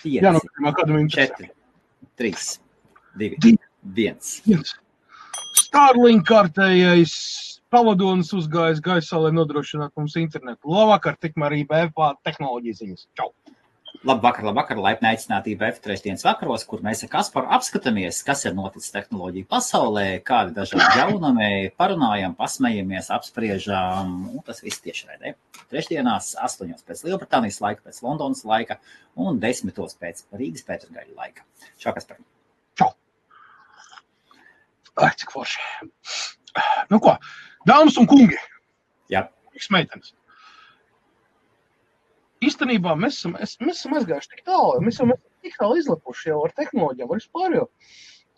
5, kādam 4, 3, 2, 1. Starlink kārtējais pavadonis uzgājis gaisā, lai nodrošinātu mums internetu. Labvakar, tikmēr IBF tehnoloģijas ziņas. Čau! Labvakar, laipni aicināti IBF trešdienas vakaros, kur mēs ar Kasparu apskatāmies, kas ir noticis tehnoloģiju pasaulē, kādi dažādi jaunumi, parunājam, pasmejamies, apspriežam, un tas viss tiešraidē. Trešdienās 8 pēc Lielbritānijas laika, pēc Londonas laika un 10 pēc Rīgas Pētergaļa laika. Čau, Kaspar. Čau. Ai, cik forši. Nu ko, dāmas un kungi. Jā. Meitenes. Īstenībā mēs esam aizgājuši tik tālu, mēs esam tik tālu izlapuši jau ar tehnoloģijām, ar vispār jau,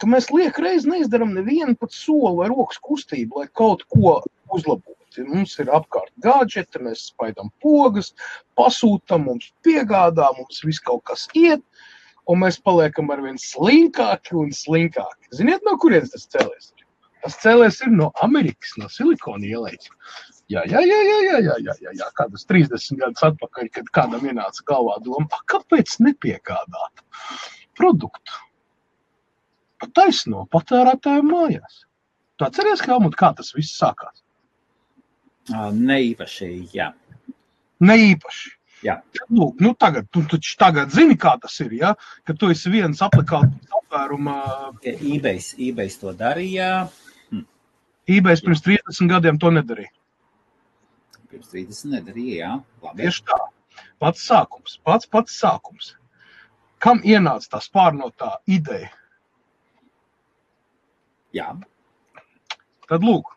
ka mēs liekreiz neizdaram nevienu pat soli vai rokas kustību, lai kaut ko uzlabotu. Mums ir apkārt gadžeti, mēs spaidām pogas, pasūtam, mums piegādā, mums viss kaut kas iet, un mēs paliekam arvien slinkāki un slinkāki. Ziniet, no kurienes tas cēlies? Tas cēlies ir no Amerikas, no Silikona ielas. Jā, kādas 30 gadus atpakaļ, kad kādam ienāca galvā doma, kāpēc nepiegādāt produktu pa taisno patērētāju mājās? Tu atceries, Helmut, kā tas viss sākās? Neīpaši, jā. Neīpaši? Jā. Lūk, nu tagad zini, kā tas ir, ja? Ka tu esi viens aplikācijas apvēruma... eBay to darīja. eBay pirms 30 gadiem to nedarīja. Pirms 30 nedarīja, jā. Labi. Tieši tā. Pats sākums. Kam ienāca tā spārnotā ideja? Jā. Tad lūk,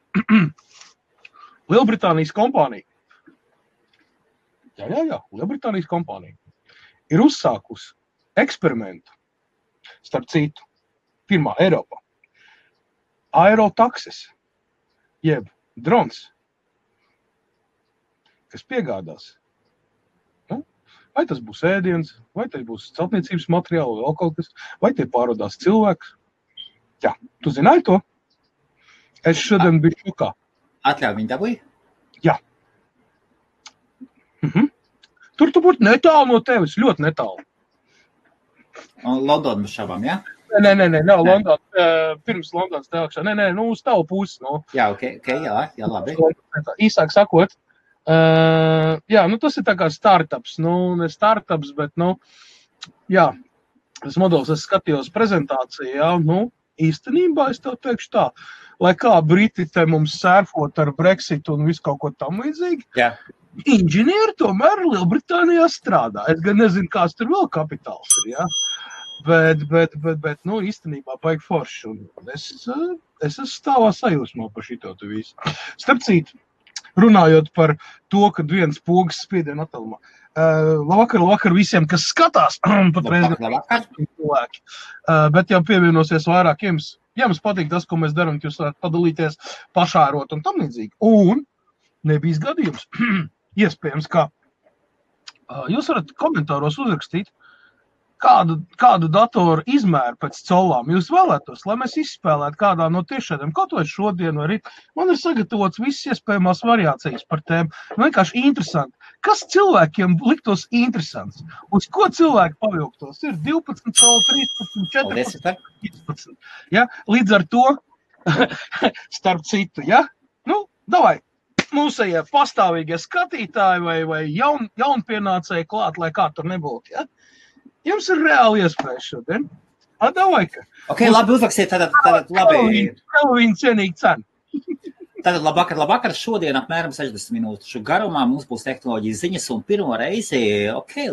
Lielbritānijas kompānija. Jā, Lielbritānijas kompānija ir uzsākusi eksperimentu, starp citu, pirmā Eiropā. Aerotaksis, jeb drons, kas piegādās. Nu, vai tas būs ēdiens, vai tas būs celtniecības materiāli, vēl kaut kas, vai tie pārvadās cilvēks. Jā, tu zināji to? Es šodien biju šokā. Atļauj viņu dabūji? Jā. Tur tu būtu netālu no tevis, ļoti netālu. Un Londona bez šabām, jā? Nē, Londona, pirms Londonas teākšā. Nē, uz tavu pusi. No. Jā, jā, labi. Īsāk sakot, tas ir tā kā startups. Ne startups, bet, jā, tas modelis, es skatījos prezentāciju, jā, īstenībā es tev teikšu tā, lai kā Briti te mums sērfot ar Brexit un visu kaut ko tam līdzīgi, jā. Inženieri tomēr Lielbritānijā strādā. Es gan nezinu, kāds tur vēl kapitāls ir, jā. Bet, īstenībā baigi forši. Un es esmu stāvā sajūsmā par šito tu visu. Starp citu, runājot par to, kad viens pogas spiediena attālumā. Labvakar visiem, kas skatās. Labvakar. Cilvēki. Bet jau pievienosies vairāk jums. Ja jums patīk tas, ko mēs darām, jūs varat padalīties, pašārot un tam līdzīgi. Un nebijis gadījums. Iespējams, ka jūs varat komentāros uzrakstīt, kādu datoru izmēru pēc colām jūs vēlētos, lai mēs izspēlētu kādā no tiešādiem, kaut vai šodien vai rīt. Man ir sagatavots visas iespējamās variācijas par tēmu. Vienkārši interesanti. Kas cilvēkiem liktos interesants? Uz ko cilvēki pavilktos? Ir 12 coli, 13, 14, 15. Ja? Līdz ar to, starp citu, ja? Davai, mūsējie pastāvīgie skatītāji vai jaunpienācēji klāt, lai kā tur nebūtu, ja? Jums ir reāli iespēja šodien. Davai, ka. Ok, labi, uzrakstiet, tātad labi. Viņa cienīga cena. Tātad labvakar, šodien apmēram 60 minūšu garumā mums būs tehnoloģijas ziņas un pirmo reizi,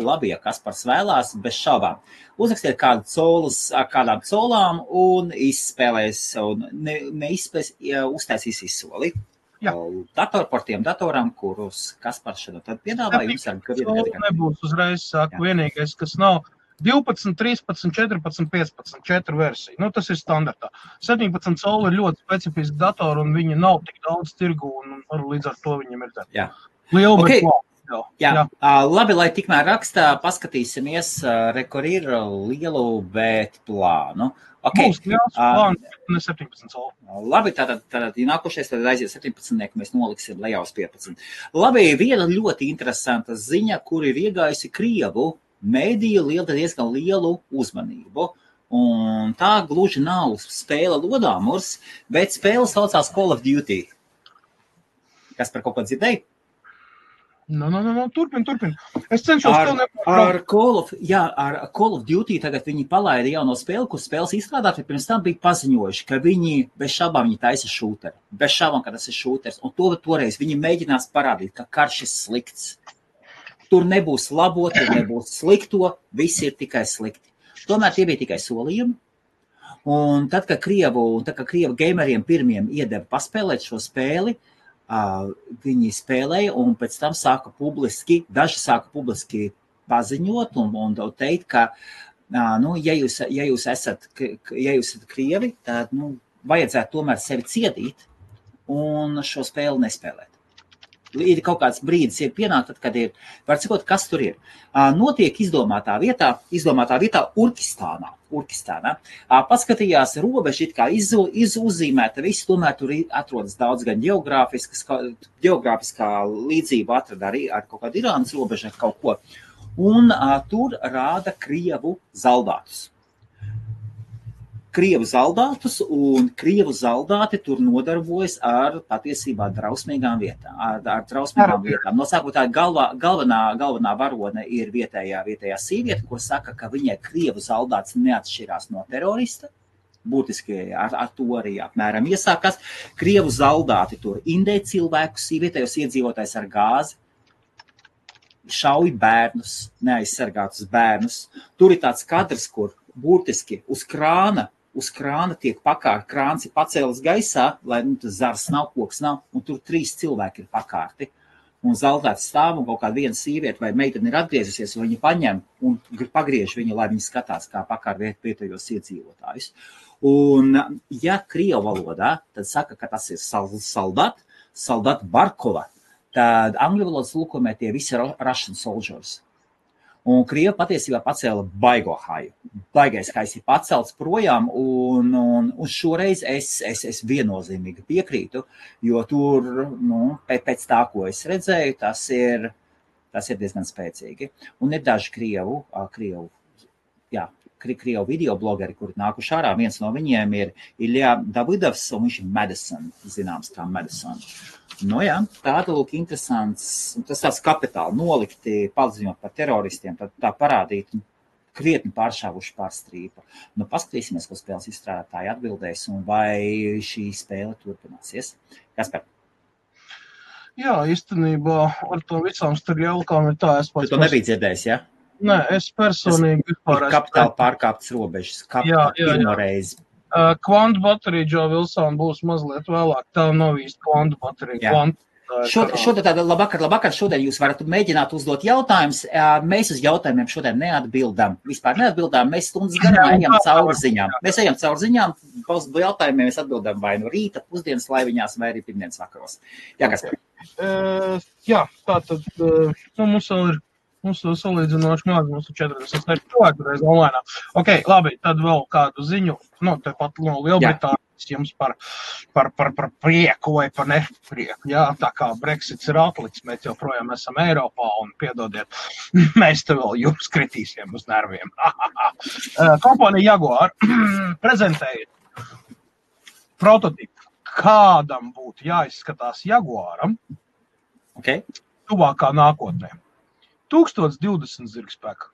labi, ja Kaspars vēlās, bez šaubām. Uzrakstiet kādām colām un izspēlēs, un neizspēs, uztaisīs izsoli. Par tiem datorām, kurus Kaspars šodien tad piedāvā, jums nebūs uzreiz, saku, vienīgais, kas nav 12, 13, 14, 15, 4 versija. Tas ir standartā. 17 coli ir ļoti specifiski datori, un viņi nav tik daudz tirgu, un līdz ar to viņam ir tā. Jā. Liela, okay. Jā. Labi, lai tikmēr rakstā, paskatīsimies, kur ir lielu bet plānu. Okay. Būs liels plāns, ne 17 coli. Labi, tātad nākošais, tad aiziet 17, mēs noliksim lejā uz 15. Labi, viena ļoti interesanta ziņa, kur ir iegājusi Krievu mēdīju diezgan lielu uzmanību. Un tā gluži nav spēle lodāmurs, bet spēle saucās Call of Duty. Kas par kaut ko dzirdēji? Turpin. Es cenšos ar Call of Duty tagad viņi palaida jauno spēli, kur spēles izstrādāti, pirms tam bija paziņojuši, ka viņi bez šaubām viņi taisa šūteri. Bez šaubām, ka tas ir šūteris. Un toreiz viņi mēģinās parādīt, ka karš ir slikts. Tur nebūs labo, tur nebūs slikto, viss ir tikai slikti. Tomēr tie bija tikai solījumi. Un tad, kad Krievu gameriem pirmiem iedeva paspēlēt šo spēli, viņi spēlēja un pēc tam daži sāka publiski paziņot un teikt, ka, ja jūs esat Krievi, tad, vajadzētu tomēr sevi ciedīt un šo spēli nespēlēt. Ir kaut kāds brīdis, ir pienākt, tad, kad ir, var cikot, kas tur ir. Notiek izdomātā vietā Urkistānā. Paskatījās robežu, it kā uzzīmēta viss, tomēr tur atrodas daudz gan geogrāfiskā līdzība atrada arī ar kaut kādu Irānas robežu ar kaut ko. Un tur rāda Krievu zaldātus. Un Krievu zaldāti tur nodarbojas ar patiesībā drausmīgām vietām. Nosākot tā galvenā varone ir vietējā sīvieta, ko saka, ka viņai Krievu zaldāts neatšķirās no terorista. Būtiski ar to arī apmēram iesākās. Krievu zaldāti tur indē cilvēkus, vietējos iedzīvotājs ar gāzi, šauj bērnus, neaizsargātus bērnus. Tur ir tāds kadrs, kur būtiski uz krāna tiek pakārt, krāns ir pacēlis gaisā, lai tas zars nav, koks nav, un tur 3 cilvēki ir pakārti. Un zaldāts stāv un kaut kāda viena sīvieta vai meitene ir atgriezusies, un viņi paņem un pagriež viņu, lai viņi skatās, kā pakārt vietējos iedzīvotājus. Un, ja Krievu valodā, tad saka, ka tas ir soldat Barkova, tad angļu valodas lūkomē tie visi ir Russian soldiers. Un Krieva patiesībā pacēla baigo haju. Baigais hajs ir pacelts projām, un šoreiz es viennozīmīgi piekrītu, jo tur, pēc tā, ko es redzēju, tas ir diezgan spēcīgi. Un ir daži Krievu videoblogeri, kuri nākuši ārā. Viens no viņiem ir Ilja Davidovs, un viņš ir Madison, zināms kā Madison. Tāda lūk interesants, tas tāds kapitāli nolikti, paziņot par teroristiem, tā parādīt krietni pāršāvuši pār strīpa. Paskatīsimies, ko spēles izstrādātāji atbildēs, un vai šī spēle turpināsies. Kaspar? Jā, īstenībā ar to visām starpjaukām ir tā, Tu to nebija dzirdējis, ja? Nē, es personīgi vispār... Kapitāli pārkāptas robežas, pirmo reizi. Kvantu baterija, Džo Vilsona, būs mazliet vēlāk. Tā nav īsti kvantu baterija. Šodien labvakar, šodien jūs varat mēģināt uzdot jautājumus. Mēs uz jautājumiem šodien neatbildam. Vispār neatbildām, mēs stundas garumā ejam cauri ziņām. Mēs ejam cauri ziņām, jautājumiem mēs atbildam vai no rīta, pusdienas laiviņās, vai arī pirmdienas vakaros. Jā, Kaspar? Tātad mums vēl ir salīdzinoši maz, mums ir 40 cilvēku reiz online. Ok, labi, tad vēl kādu ziņu, tepat no Lielbritānijas jums par prieku vai par neprieku. Jā, tā kā Brexits ir atliks, mēs joprojām esam Eiropā un piedodiet, mēs te vēl jums kritīsim uz nerviem. Kompānija Jaguar prezentēja prototipu, kādam būtu jāizskatās Jaguaram tuvākā nākotnē. 1020 zirgspēka.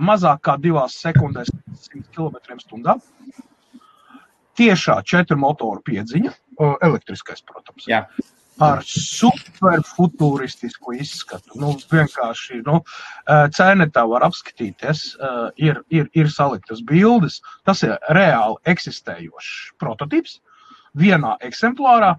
Mazāk kā 2 sekundēs 100 km/h. Tiešā 4 motoru piedziņa, elektriskais, protams. Jā. Ar superfuturistisku izskatu. Vienkārši, cēnetā var apskatīties, ir saliktas bildes. Tas ir reāli eksistējošs prototips vienā eksemplārā.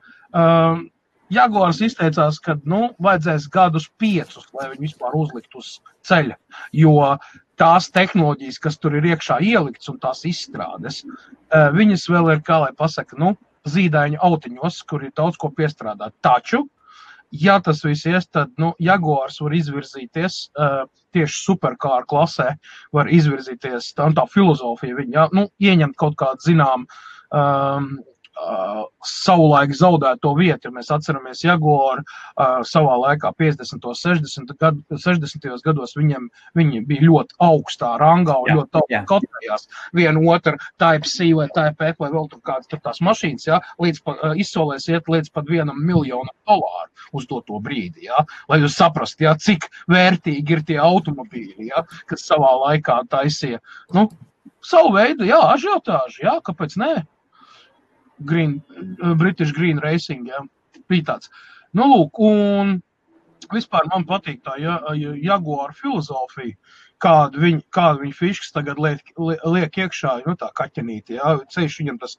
Jaguars izteicās, ka vajadzēs gadus 5, lai viņi vispār uzlikt uz ceļa, jo tās tehnoloģijas, kas tur ir iekšā ielikts un tās izstrādes, viņas vēl ir, kā lai pasaka, zīdaiņu autiņos, kur ir daudz ko piestrādāt. Taču, ja tas viss ies, tad Jaguars var izvirzīties tieši superkāru klasē, var izvirzīties, tā filozofija viņa, ieņemt kaut kādu zinām savulaik zaudēto vietu, ja mēs atceramies Jaguar savā laikā 50. 60. gados viņi bija ļoti augstā rangā un ļoti augstā kotējās. Viena otra Type-C vai Type-F vai vēl tur kādas tur tās mašīnas, ja, izsolēs iet līdz pat $1 miljonu uz to brīdi, ja, lai jūs saprast, ja, cik vērtīgi ir tie automobīļi, ja, kas savā laikā taisīja, savu veidu, jā, ažiotāži, jā, kāpēc nē? British Green Racing, jā, bija tāds. Lūk, un vispār man patīk tā Jaguar filozofija, kādu viņi fiškas tagad liek iekšā, tā kaķenīti, jā, ceļš viņam tas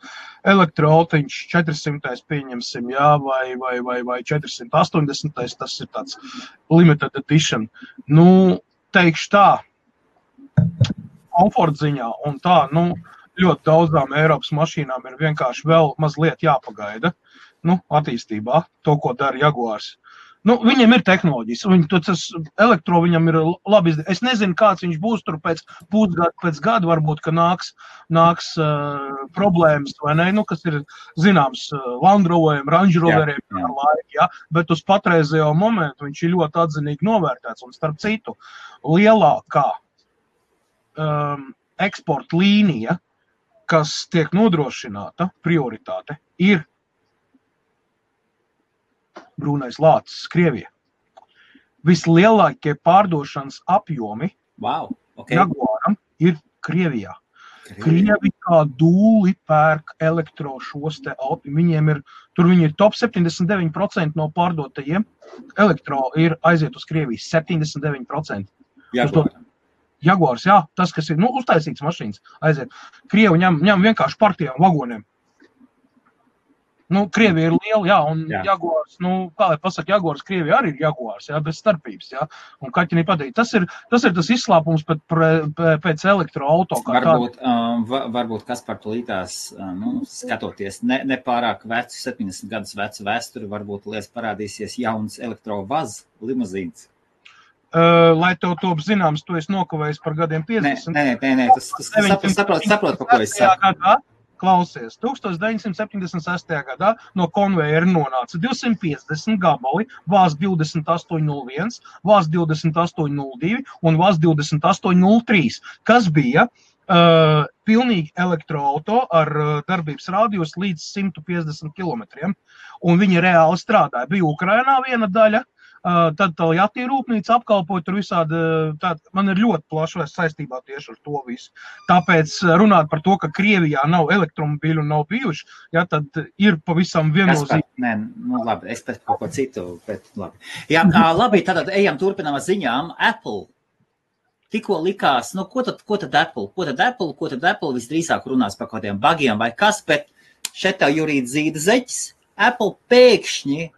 elektroautiņš 400. pieņemsim, jā, vai 480. Tas ir tāds limited edition. Teikšu tā, komfortziņā un tā, ļoti daudzām Eiropas mašīnām ir vienkārši vēl mazliet jāpagaida, attīstībā, to, ko dara Jaguars. Viņiem ir tehnoloģijas, tas elektro viņam ir labi izdarīt. Es nezinu, kāds viņš būs tur pēc gada, varbūt, ka nāks problēmas, vai ne, kas ir zināms Land Roveriem, Range Roveriem ar laiku, ja, bet uz patreizējo momentu viņš ir ļoti atzinīgi novērtēts, un starp citu, lielākā eksporta līnija, kas tiek nodrošināta, prioritāte, ir brūnais lācis Krievija. Vislielākie pārdošanas apjomi Jaguaram ir Krievijā. Krievi kā dūli pērk elektro šos te auti. Viņiem viņi ir top 79% no pārdotajiem. Elektro ir aiziet uz Krieviju 79%. Jaguars, jā, tas, kas ir, uztaisīts mašīnas, aiziet. Krievi ņem vienkārši par tiem vagoniem. Krievija ir liela, jā, un Jaguars, kā lai pasaka, Jaguars, Krievija arī ir Jaguars, jā, bez starpības, jā, un kaķinī patīk. Tas ir tas izslāpums pēc elektroauto. Varbūt Kaspar tulītās, skatoties nepārāk vecu, 70 gadus vecu vēsturi, varbūt liels parādīsies jauns elektrovaz limuzīns. Lai tev top zināms, tu esi nokavējis par gadiem 50. Nē, tas saprot, pa ko es saku. Klausies, 1976. gadā no konvejera nonāca 250 gabali, VAZ 2801, VAZ 2802 un VAZ 2803, kas bija pilnīgi elektroauto ar darbības rādījus līdz 150 kilometriem, un viņi reāli strādāja. Bija Ukrainā viena daļa, tad Toyota rūpnīca apkalpoja tur visādi, man ir ļoti plaša saistībā tieši ar to visu. Tāpēc runāt par to, ka Krievijā nav elektromobīļu un nav bijuši, ja, tad ir pavisam viennozīmīgi. Nē, labi, es pēc kaut ko citu, bet labi. Jā, labi, tad ejam turpinām ar ziņām. Apple. Tikko likās, ko tad Apple visdrīzāk runās par kaut kādiem bugiem vai kas, bet šeit tev Jurīt zīda zeķis. Apple pēkšņi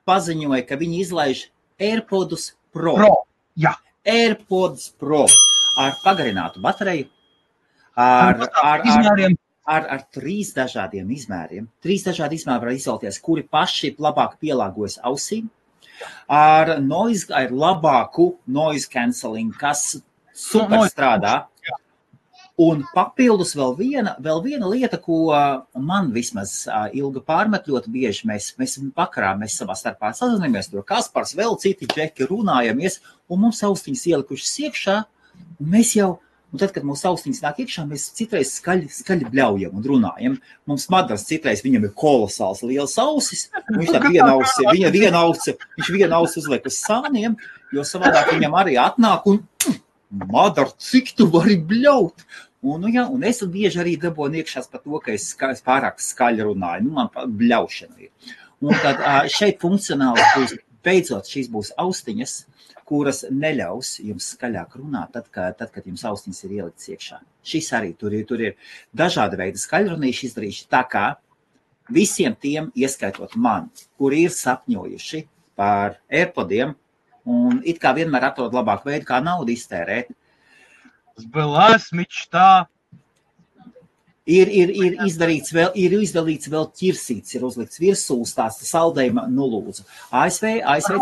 paziņoja, ka viņi izlaiž AirPods Pro. Jā. AirPods Pro ar pagarinātu bateriju, ar 3 dažādiem izmēriem. 3 dažādi izmēri var izvēlēties, kuri paši labāk pielāgojas ausīm, ar labāku noise cancelling, kas super strādā. Un papildus vēl viena lieta, ko man vismaz Ilga pārmet ļoti bieži, mēs vakarā savā starpā sazināmies, tur Kaspars, vēl citi džeki runājamies, un mums austiņas ielikušas iekšā, un mēs jau, un tad, kad mūsu austiņas nāk iekšā, mēs citreiz skaļi bļaujam un runājam. Mums Madars citreiz, viņam ir kolosāls liels ausis, un viņš tā viena ausi uzliek uz sāniem, jo savādāk viņam arī atnāk un Madar, cik tu vari bļaut? Un es bieži arī dabonu iekšās par to, ka es pārāk skaļi runāju. Man bļaušana ir. Un tad šeit funkcionāli būs, beidzot, šīs būs austiņas, kuras neļaus jums skaļāk runāt, tad, kad jums austiņas ir ieliktas iekšā. Šis arī tur ir dažādi veidi skaļrunīši izdarījuši, tā kā visiem tiem, ieskaitot man, kuri ir sapņojuši par AirPodiem un it kā vienmēr atrod labāku veidu, kā naudu iztērēt. Была мечта. Ir izdalīts vēl ķirsīts, ir uzlikts virsūs tās saldējuma nulūdzu. ASV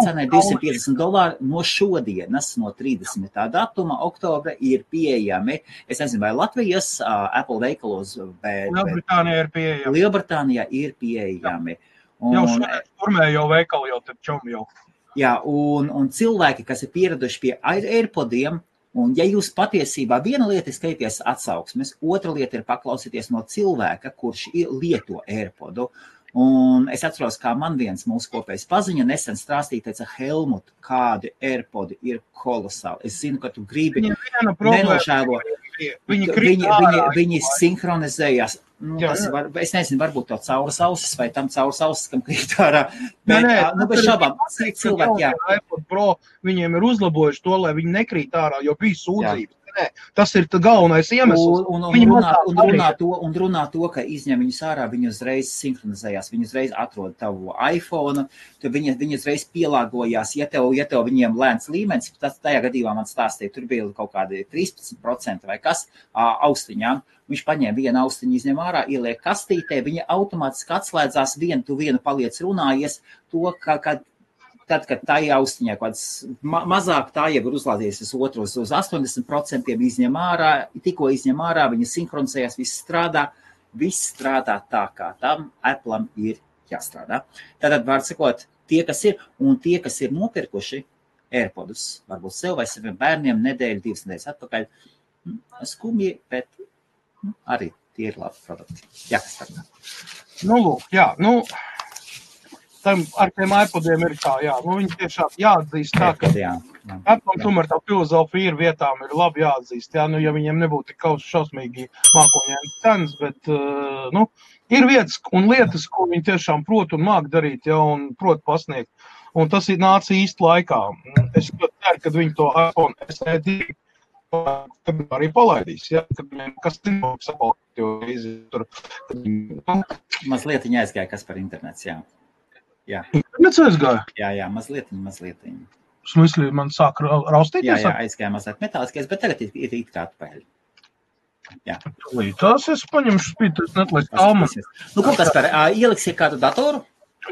cenai $250 no šodienas, no 30. datuma, oktobra ir pieejami. Es nezinu, vai Latvijas Apple veikalos, bet Lielbritānijā ir pieejami. Jau šodien turmējo veikalu jau tad čom jau. Jā, un cilvēki, kas ir pieraduši pie AirPodiem, un ja jūs patiesībā viena lieta ir skatīties atsauksmes, otra lieta ir paklausīties no cilvēka, kurš lieto AirPodu. Un es atceros, kā man viens mūsu kopējs paziņa nesen strāstīja, teica, Helmut, kādi AirPodi ir kolosāli. Es zinu, ka tu gribi nenožēlo. Viņi sinhronizējās. Es nezinu, varbūt to cauras ausis vai tam cauras ausis, kam krīt ārā. Bez šabām, cilvēki, jā. iPod Pro viņiem ir uzlabojuši to, lai viņi nekrīt ārā, jo bija sūdzības. Tas ir galvenais iemesls. Un runā to, ka izņem viņus ārā, viņi uzreiz sinhronizējās, viņi uzreiz atrod tavu iPhone, tad viņi uzreiz pielāgojās, ja tev viņiem lēns līmenis, tas tajā gadījumā man stāstīja, tur bija kaut kādi 13% vai kas austiņām. Viņš paņēma vienu austiņu, izņem ārā, ieliek kastītē, viņa automātiski atslēdzās, vienu paliec runājies, to, tad, kad tā austiņā mazāk, tā jau ir uzlādījies uz otru, uz 80% izņem ārā, tikko izņem ārā, viņa sinhronizējās, viss strādā tā, kā tam Apple'am ir jāstrādā. Tātad, var sakot, tie, kas ir nopirkuši AirPodus, varbūt sev vai saviem bērniem nedēļu, 2 nedēļas atpakaļ, skumji, bet arī tie ir labi produkti. Jā, kas tā. Lūk, jā, ar tiem iPodiem ir tā, jā, viņi tiešām jāatzīst tā, ka Apple tomēr tā filozofija ir vietām, ir labi jāatzīst, jā, ja viņiem nebūtu tik šausmīgi mākoņēni cenas, bet, ir vietas un lietas, ko viņi tiešām prot un māk darīt, jā, un prot pasniegt, un tas ir nāca īsti laikā. Es ceru, kad viņi to iPhone SE 2 arī palaidīs, ja, kad viņiem kas tur. Mazliet viņa aizgāja, kas par internets, jā. Jā. Internets aizgāja? Jā, mazliet. Smysli, man sāk raustīties? Jā, aizgāja mazliet metāliskais, bet tagad ir it kā atpēļ. Jā. Tās es paņemšu spītu, es netlaistu tālman. Ko tas par, ieliksiet kādu datoru?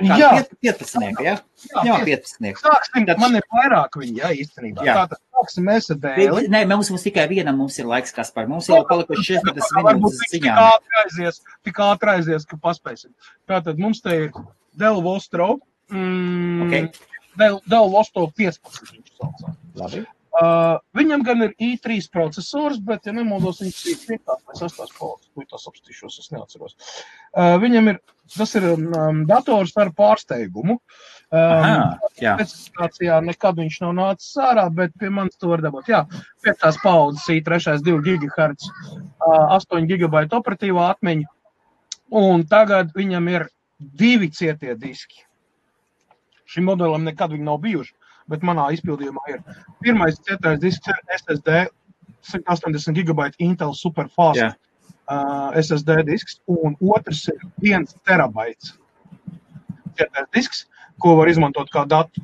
Jā. 15, jā? Jā, 15. Sāksim, man ir vairāk viņi, jā, īstenībā. Tātad sāksim mēs ar dēli. Nē, mums tikai vienam mums ir laiks, Kaspar. Mums jau palikuši 60 minūtes ziņām. Tik ātri aizies, ka paspēsim. Tātad mums te ir Dell Vostro. Dell Vostro 15 viņš saucā. Labi. Viņam gan ir i3 procesors, bet, ja nemaldos, viņš ir 5. vai 6. paudzes. Tas apstīšos, es neatceros. Viņam ir, tas ir dators ar pārsteigumu. Specifikācijā nekad viņš nav nācis ārā, bet pie manis to var dabūt. Jā, 5. paudzes i3 2 GHz, 8 GB operatīvā atmiņa, un tagad viņam ir 2 cietie diski. Šim modelim nekad viņi nav bijuši. Bet manā izpildījumā ir pirmais cietais disks ir SSD 180 GB Intel Superfast SSD disks, un otrs ir 1 terabaits cietais disks, ko var izmantot kā datu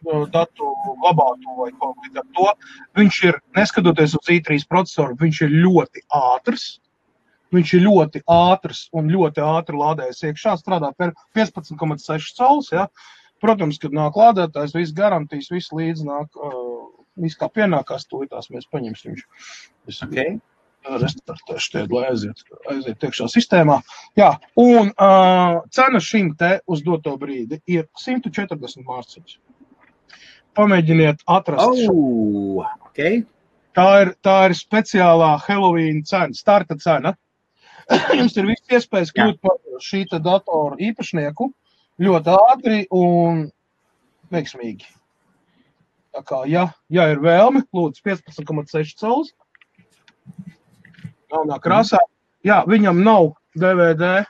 glabātu vai kaut līdz ar to. Viņš ir, neskatoties uz i3 procesoru, viņš ir ļoti ātrs. Viņš ir ļoti ātrs un ļoti ātri lādējas iekšā, strādā par 15,6 cols, ja. Protams, kad nāk lādētājs, viss garantijas, viss līdz nāk, viss kā pienākās, tūlītās mēs paņemsim viņš. Okay. Restartēšu tie, lai aiziet iekšā sistēmā. Jā, un cena šim te uz doto brīdi ir 140 mārciņas. Pamēģiniet atrast šo. Okay. Tā ir speciālā Halloween cena, starta cena. Jums ir viss iespējas kļūt par šī te datoru īpašnieku. Ļoti ātri un veiksmīgi. Tā kā, ja ir vēlme, lūdzu 15,6 cols. Galvenā krāsā. Jā, viņam nav DVD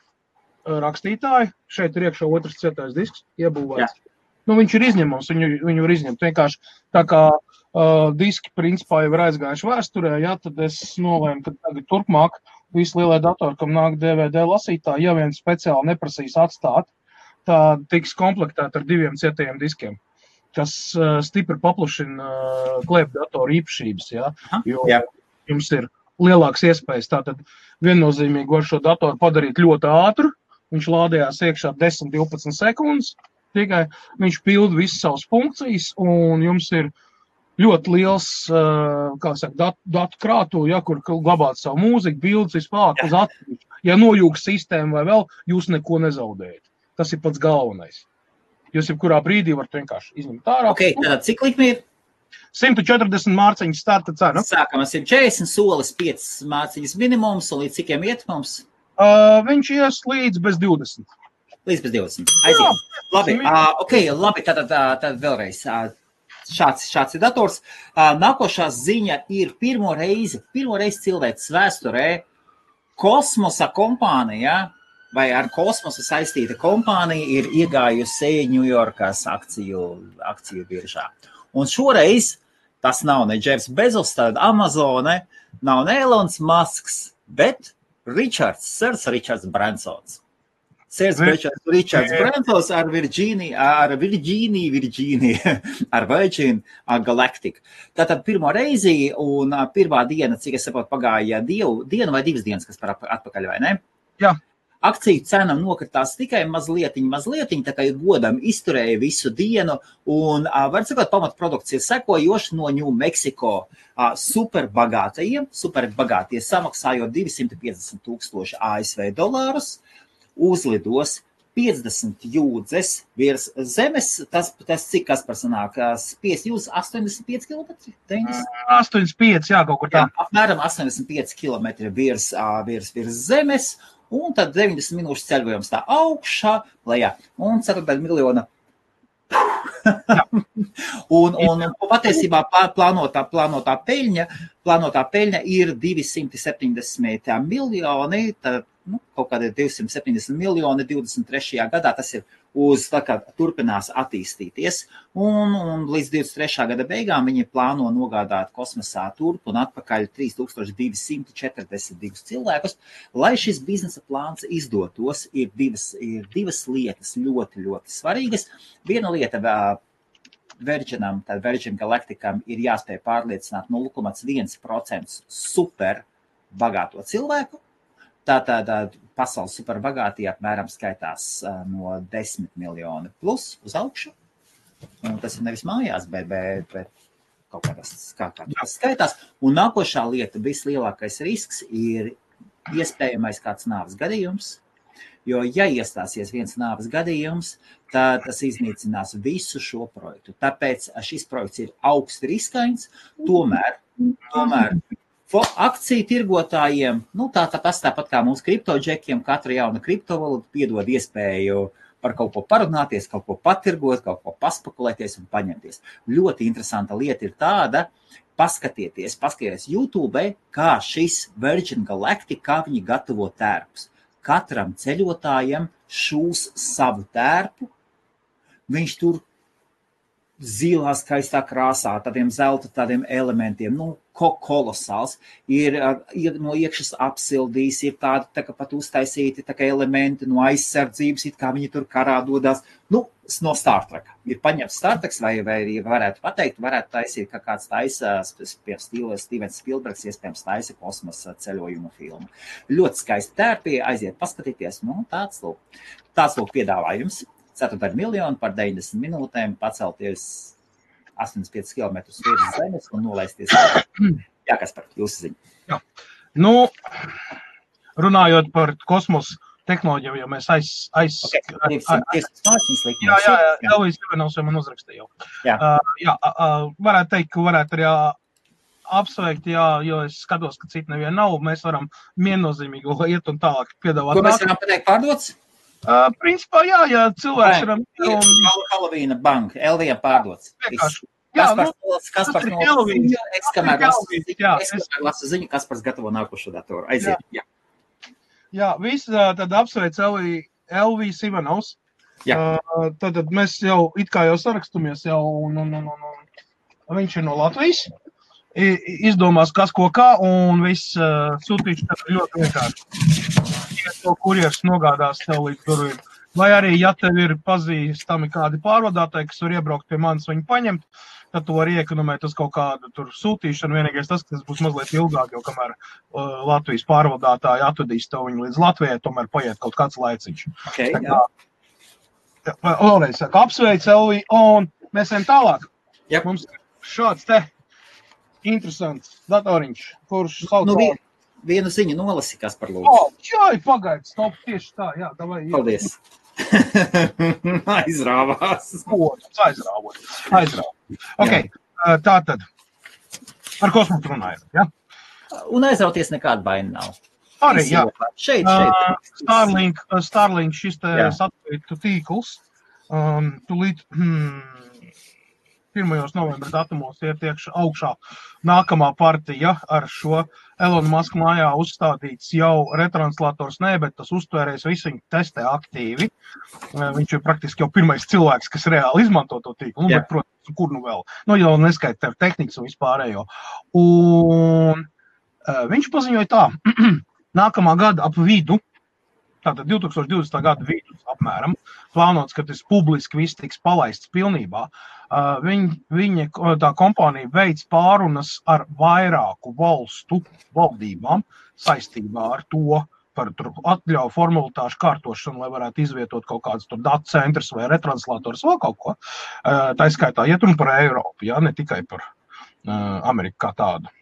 rakstītāji. Šeit ir iekšā otrs cietais disks iebūvēts. Viņš ir izņemams, viņu var izņemt. Vienkārši tā kā diski principā jau ir aizgājuši vēsturē, tad es nolēmu, ka tagad turpmāk visi lielie datori, kam nāk DVD lasītāji, ja vien speciāli neprasīs atstāt, tā tiks komplektēta ar 2 cietajiem diskiem, kas stipri paplašina klēpdatoru īpašības, jo jums ir lielākas iespējas. Tātad viennozīmīgi var šo datoru padarīt ļoti ātru. Viņš lādējās iekšā 10-12 sekundes. Tikai viņš pilda visas savas funkcijas, un jums ir ļoti liels datu krātuve, ja, kur glabāt savu mūziku, bildes, vispār uz atsevišķu. Ja nojūg sistēmu vai vēl, jūs neko nezaudējat. Tas ir pats galvenais. Jūs jebkurā brīdī varat vienkārši izņemt ārā. Ok, tad cik likmi ir? 140 mārciņas starta cena. Sākam ar 140, solis 5 mārciņas minimums, un līdz cikiem iet mums? Viņš ies līdz bez 20. Līdz bez 20. Aiziet. Labi, labi, tad vēlreiz. Šāds ir dators. Nākošā ziņa ir pirmo reizi cilvēks vēsturē kosmosa kompānija, vai ar kosmosu saistīta kompānija ir iegājusi Ņujorkas akciju biržā. Un šoreiz tas nav ne Jeffs Bezos, tad Amazone, nav ne Elons Musks, bet Sir Richards Bransons. Sir Richards Bransons ar Virgin Galactic. Tātad pirmo reizi un pirmā diena, cik es saprotu, pagāja diena vai 2 dienas, kas par atpakaļ, vai ne? Jā. Akciju cena nokritās tikai mazlietiņ, tā kā ir godam izturēja visu dienu, un, var sakot, pamatprodukcija sekojoši no New Mexico superbagātie samaksājot $250,000 ASV, uzlidos 50 jūdzes virs zemes, tas cik kas par sanāk, spies jūdzes 85 km? 85, jā, kaut kur tā. Jā, apmēram 85 km virs zemes, un tad 90 minūšu ceļojums tā augšā, lejā, un 4 miljona. un patiesībā plānotā peļņa ir 270 miljoni, tad, kaut kādi 270 miljoni 23. gadā, tas ir tā kā turpinās attīstīties, un līdz 23. gada beigām viņi plāno nogādāt kosmosā turp un atpakaļ 3242 cilvēkus. Lai šis biznesa plāns izdotos, ir divas lietas ļoti, ļoti svarīgas. Viena lieta Virgin Galacticam ir jāspēj pārliecināt 0,1% super bagāto cilvēku. Tātad pasaules superbagātie apmēram skaitās no 10 miljoni plus uz augšu. Un tas ir nevis mājās, bet kaut kā tas skaitās. Un nākošā lieta, vislielākais risks ir iespējamais kāds nāves gadījums. Jo, ja iestāsies viens nāves gadījums, tad tas iznīcinās visu šo projektu. Tāpēc šis projekts ir augsti riskains, tomēr akciju tirgotājiem, tas tāpat kā mūsu kriptodžekiem, katra jauna kriptovalūta piedod iespēju par kaut ko parunāties, kaut ko patirgot, kaut ko paspekulēties un paņemties. Ļoti interesanta lieta ir tāda, paskatieties YouTube, kā šis Virgin Galactic, kā viņi gatavo tērpus. Katram ceļotājam šūs savu tērpu, viņš tur zilā skaistā krāsā, tādiem zelta, tādiem elementiem, kolosāls, ir no iekšas apsildījis, ir tādi tā kā pat uztaisīti tā kā elementi no aizsardzības, it kā viņi tur karā dodās, no Star Trek. Ir paņemts Star Trek, vai varētu pateikt, varētu taisīt, ka kāds taisa, pie Stevens Spielbergs, iespējams taisa kosmosa ceļojumu filmu. Ļoti skaisti tērpi, aiziet paskatīties, tāds lūk piedāvājums. 4 miljoni par 90 minūtēm pacelties 85 km virs zemes un nolaisties. Jā, kas par jūsu ziņu? Jā. Runājot par kosmosa tehnoloģiju, jo mēs Elvis Ivanovs jau man uzrakstīja. Varētu teikt, ka varētu arī apsveikt, jo es skatos, ka citu nevienu nav, mēs varam viennozīmīgi iet un tālāk piedāvāt. Ko mēs varam pateikt pārdots? Principā, ja cilvēks ir... Halloween bank, LVM pārdots. Kaspars no ziņu, es kamēr lasu ziņu, Kaspars gatavo nākošo datoru. Aiziet, jā. Jā, visi tad apsveic Elvis Ivanovs. Tad mēs jau it kā jau sarakstumies un viņš ir no Latvijas. Izdomās, kas ko kā, un viss sūtīšu tad ļoti vienkārši. To kurjers nogādās tev līdz durvīm. Vai arī, ja tev ir pazīstami kādi pārvadātāji, kas var iebraukt pie manis, viņu paņemt, tad tu vari iekonomēt uz kaut kādu tur sūtīšanu. Vienīgais tas, ka tas būs mazliet ilgāk, jo kamēr Latvijas pārvadātāji atvedīs to viņu līdz Latvijai, tomēr paiet kaut kāds laiciņš. Okay, Vēlreiz saka, apsveic, Elvī, un mēs ejam tālāk. Yep. Mums šāds te interesants datoriņš, kurš sauc... Vienu ziņu nolasi, kas par lūdzu. Čai, pagaid, stop, tieši tā, jā, davai. Paldies. Aizrāvās. Aizrāvot. Ok, tātad, ar kosmosu runājam, ja? Un aizrauties nekāda baina nav. Arī, jā. Šeit. Starlink šis te satelītu tīkls, tulīt 1. novembra datumos iet augšā nākamā partija ar šo Elona Muska mājā uzstādīts jau retranslators, bet tas uztvērējs visu viņu testē aktīvi. Viņš ir praktiski jau pirmais cilvēks, kas reāli izmanto to tīklu. Bet, protams, kur nu vēl? Jau neskaita tehnikas un vispārējo. Un viņš paziņoja tā, nākamā gada ap vidu, tātad 2020. gada vidus apmēram, plānots, ka tas publiski viss tiks palaists pilnībā. Viņa tā kompānija veids pārunas ar vairāku valstu valdībām saistībā ar to par atļauju formalitāšu kārtošanu, lai varētu izvietot kaut kādas tur datu centrus vai retranslators vai kaut ko. Tā skaitā iet runa par Eiropu, ne tikai par Ameriku kā tādu.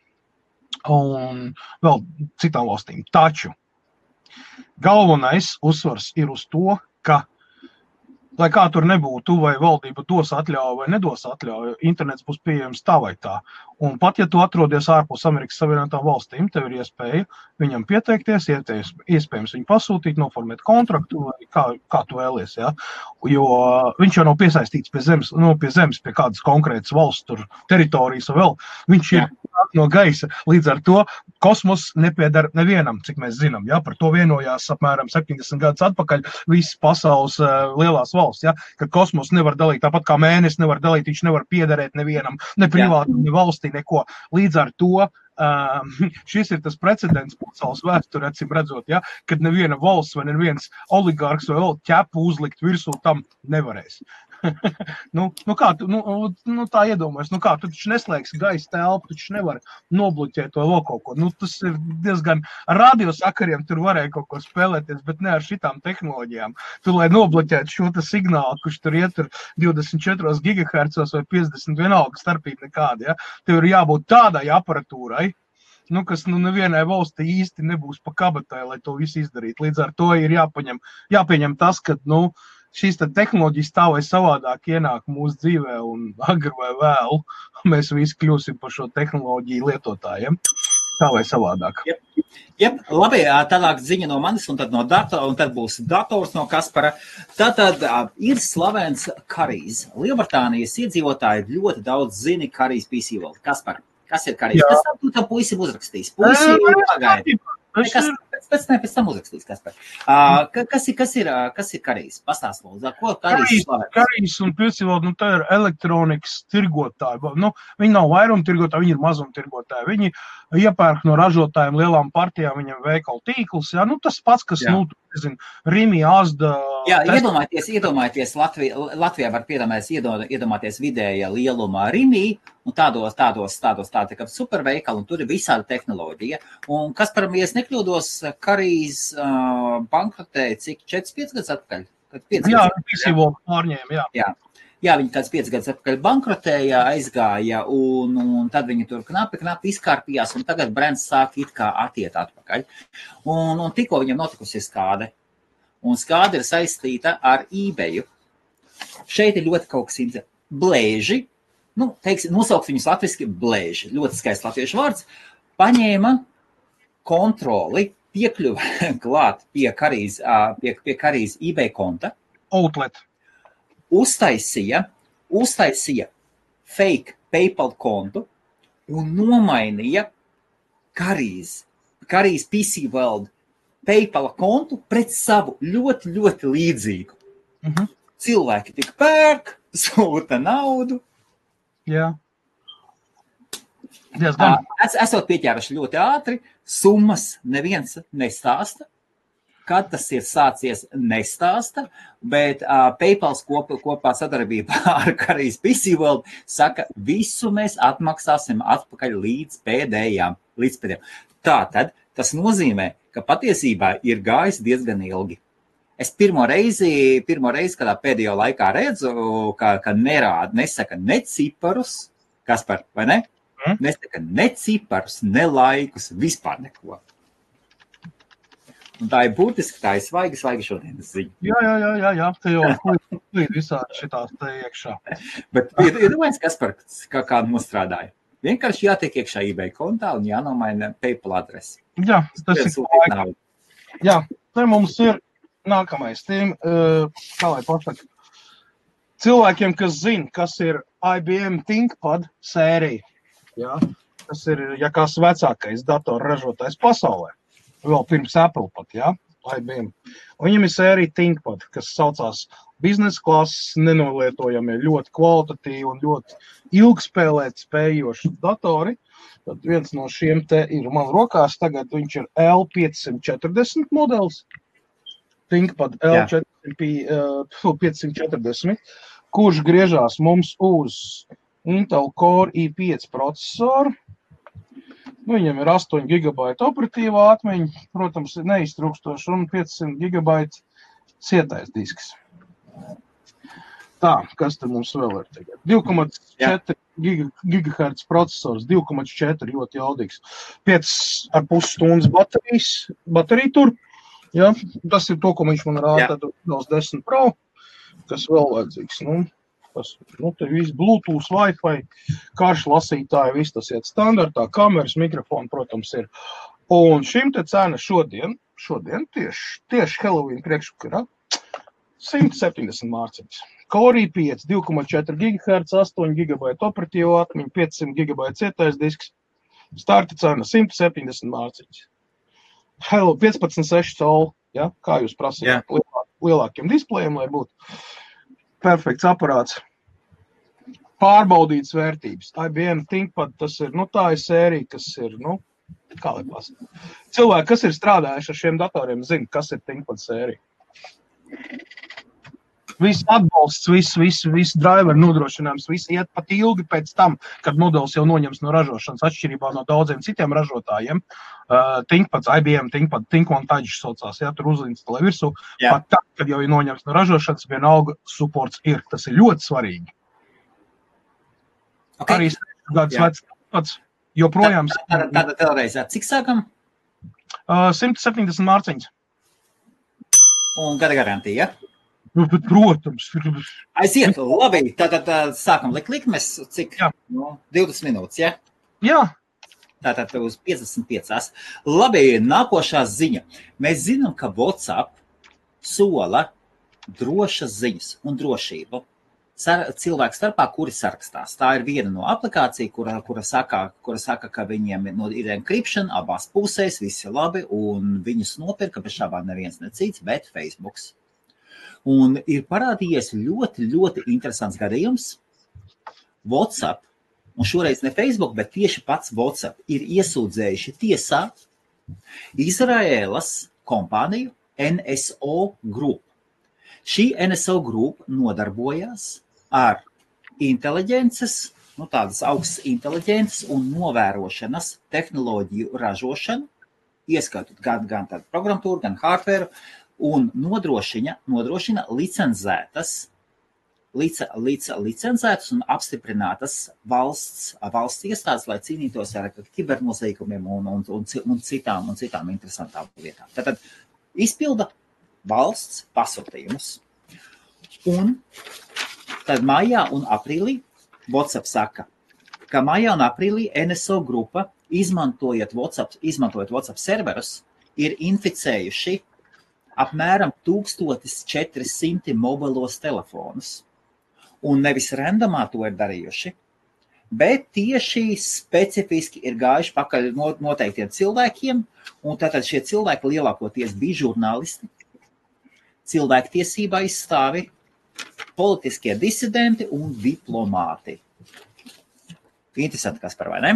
Un vēl citām valstīm. Taču galvenais uzsvars ir uz to, ka, lai kā tur nebūtu, vai valdība dos atļauju vai nedos atļauju, internets būs pieejams tā vai tā. Un pat, ja tu atrodies ārpus Amerikas Savienotām valstīm, tev ir iespēja viņam pieteikties, iespējams viņu pasūtīt, noformēt kontraktu, vai kā tu vēlies, ja? Jo viņš jau nav piesaistīts pie zemes, pie kādas konkrētas valsts tur teritorijas vēl. Viņš ir no gaisa. Līdz ar to kosmos nepiedara nevienam, cik mēs zinām. Ja? Par to vienojās apmēram 70 gadus atpakaļ visas pasaules lielās valsts. Ja? Ka kosmos nevar dalīt, tāpat kā mēnesis nevar dalīt, viņš nevar piederēt nevienam, ne privāti, ne valstī, neko. Līdz ar to šis ir tas precedents pasaules vēsturē, acīm redzot, ja? Kad neviena valsts vai neviens oligārks vai vēl ķepu uzlikt virsū tam nevarēs. Tā iedomājas, kā tu taču neslēgsi gaisa telpu, tu taču nevar nobloķēt to vēl kaut ko. Tas ir diezgan radiosakariem, tur varēja kaut ko spēlēties, bet ne ar šitām tehnoloģijām. Tu, lai nobloķētu šo signālu, kurš tur ietur 24 GHz vai 50 vienalga starpība nekāda, ja? Tev ir jābūt tādai aparatūrai, kas nevienai valstī īsti nebūs pa kabatai, lai to visu izdarītu. Līdz ar to ir jāpieņem tas, ka, šīs tehnoloģijas tā vai savādāk ienāk mūsu dzīvē un agri vai vēlu mēs visi kļūsim par šo tehnoloģiju lietotājiem. Tā vai savādāk. Jep, labi, tālāk ziņa no manis un tad no datora, un tad būs dators no Kaspara. Tātad ir slavens Karijs. Lielbritānijas iedzīvotāji ļoti daudz zini Karijs PC World. Kaspar, kas ir Karijs? Kas tu tam puisim uzrakstīs? Puisi pagaidi. Pēc tam uzrakstīs, Kaspar. Kas ir Karijs? Pastāst lūdzu, ko Karijs slavens? Karijs un PC World, tā ir elektronikas tirgotāji. Viņi nav vairumtirgotāji, viņi ir mazumtirgotāji. Viņi iepērk no ražotājiem lielām partijām, viņam veikalu tīklus. Ja? Tas pats, kas, Rimi, Asda... Jā, iedomājieties Latvijā var iedomāties vidēja lielumā Rimi, un tādos tādi kā superveikali, un tur ir visāda tehnoloģija. Un kas par mies nekļūdos, Karijs bankrotēja cik 4-5 gadus atpakaļ? Jā, PC World pārņēma, jā. Jā, viņi kāds 5 gadus atpakaļ bankrotēja, aizgāja, un tad viņi tur knapi izkārpījās, un tagad brands sāk it kā atiet atpakaļ. Un tikko viņam notikusi skāde, un skāde ir saistīta ar eBayu. Šeit ir ļoti kaut kas interesants. Blēži, nosaukt viņus latviski blēži, ļoti skaists latviešu vārds, paņēma kontroli, piekļuva klāt pie Karijs eBay konta. Outlet. Uztaisīja fake PayPal kontu un nomainīja Karijs PC World PayPal kontu pret savu ļoti, ļoti līdzīgu. Cilvēki tik pērk, sūta naudu. Jā. Esot pieķēruši ļoti ātri, summas neviens nestāsta. Kad tas ir sācies, nestāsta, bet PayPal kopā sadarbībā ar Karijas PC World saka, visu mēs atmaksāsim atpakaļ līdz pēdējām. Tātad tas nozīmē, ka patiesībā ir gājis diezgan ilgi. Es pirmo reizi, kādā pēdējo laikā redzu, ka nesaka ne ciparus, Kaspar, vai ne? Nesaka ne ciparus, ne laikus, vispār neko. Un tā ir būtiski, tā ir svaigi šodienas ziņa. Jā, te jau līdz visādi šitās te iekšā. Bet iedomājies, Kaspar, kā nostrādāja. Vienkārši jātiek iekšā eBay kontā un jānomaina PayPal adresi. Jā, tas ir laika. Jā, te mums ir nākamais tiem, kā lai pasaka, cilvēkiem, kas zina, kas ir IBM ThinkPad sērija. Jā, tas ir, ja kāds vecākais datorražotājs pasaulē. Vēl pirms Apple pat, jā, IBM. Un viņam ir sērija ThinkPad, kas saucās biznesa klases, nenolietojamie, ļoti kvalitatīvi un ļoti ilgspēlēt spējoši datori. Tad viens no šiem te ir man rokās, tagad viņš ir L540 modelis. ThinkPad L540, kurš griežās mums uz Intel Core i5 procesoru. Viņam ir 8 GB operatīvā atmiņa, protams, neiztrūkstoši, un 500 GB cietais disks. Tā, kas te mums vēl ir tagad? 2,4 GHz procesors, 2,4 ļoti jaudīgs. 5,5 stundas baterija tur. Ja, tas ir to, ko viņš man rāda, tad Windows 10 Pro, kas vēl vajadzīgs. Te viss Bluetooth, Wi-Fi, karš lasītāji, viss tas iet standartā, kameras, mikrofoni, protams, ir. Un šim te cena šodien tieši Halloween priekšvakarā, 170 mārciņas. Core i5, 2,4 GHz, 8 GB operatīvo atmiņu, 500 GB cietais disks, starta cena 170 mārciņas. Hello, 15,6 colu, ja? Kā jūs prasījāt, lielākiem displejiem, lai būtu perfekts aparāts. Pārbaudītas vērtības. IBM ThinkPad, tas ir, tā ir sērija, kas ir, kā lai pasaka. Cilvēki, kas ir strādājuši ar šiem datoriem, zina, kas ir ThinkPad sērija. Viss atbalsts, viss driver nodrošinājums, viss iet pat ilgi pēc tam, kad modelis jau noņems no ražošanas, atšķirībā no daudziem citiem ražotājiem. ThinkPads, IBM ThinkPad, ThinkOneTouch saucās, tur uzinstalē virsū. Pat tā, kad jau ir noņems no ražošanas, vienalga supports ir. Tas ir ļoti svarīgi. Okay. Arī 6 gadus vecs ThinkPads joprojām. Tāda vēlreiz, cik sākam? 170 mārciņas. Un gada garantija, ja? Bet, protams. Aiziet, labi, tātad sākam likmes, cik? 20 minūtes, ja? Jā. Tātad uz 55. Labi, nākošā ziņa. Mēs zinām, ka WhatsApp sola drošas ziņas un drošību cilvēku starpā, kuri sarakstās. Tā ir viena no aplikācija, kura saka, ka viņiem ir encryption abās pusēs, viss ir labi, un viņus nopirka bez šābām neviens necīts, bet Facebooks. Un ir parādījies ļoti, ļoti interesants gadījums. WhatsApp, un šoreiz ne Facebook, bet tieši pats WhatsApp ir iesūdzējuši tiesā Izraēlas kompāniju NSO Group. Šī NSO Group nodarbojās ar inteliģences, tādas augstas inteliģences un novērošanas tehnoloģiju ražošanu, ieskaitot gan tādu programmatūru, gan hardware, un nodrošina licencētas un apstiprinātas valsts iestādes, lai cīnītos ar kibernoziegumiem un citām interesantām lietām. Tātad izpilda valsts pasūtījumus. Un tad maijā un aprīlī WhatsApp saka, ka maijā un aprīlī NSO grupa, izmantojot WhatsApp serverus, ir inficējuši apmēram 1400 mobilos telefonus. Un nevis randomā to ir darījuši, bet tieši specifiski ir gājuši pakaļ noteiktiem cilvēkiem, un tātad šie cilvēki lielākoties bija žurnālisti, cilvēktiesība aizstāvi, politiskie disidenti un diplomāti. Interesanti, kas par vai ne?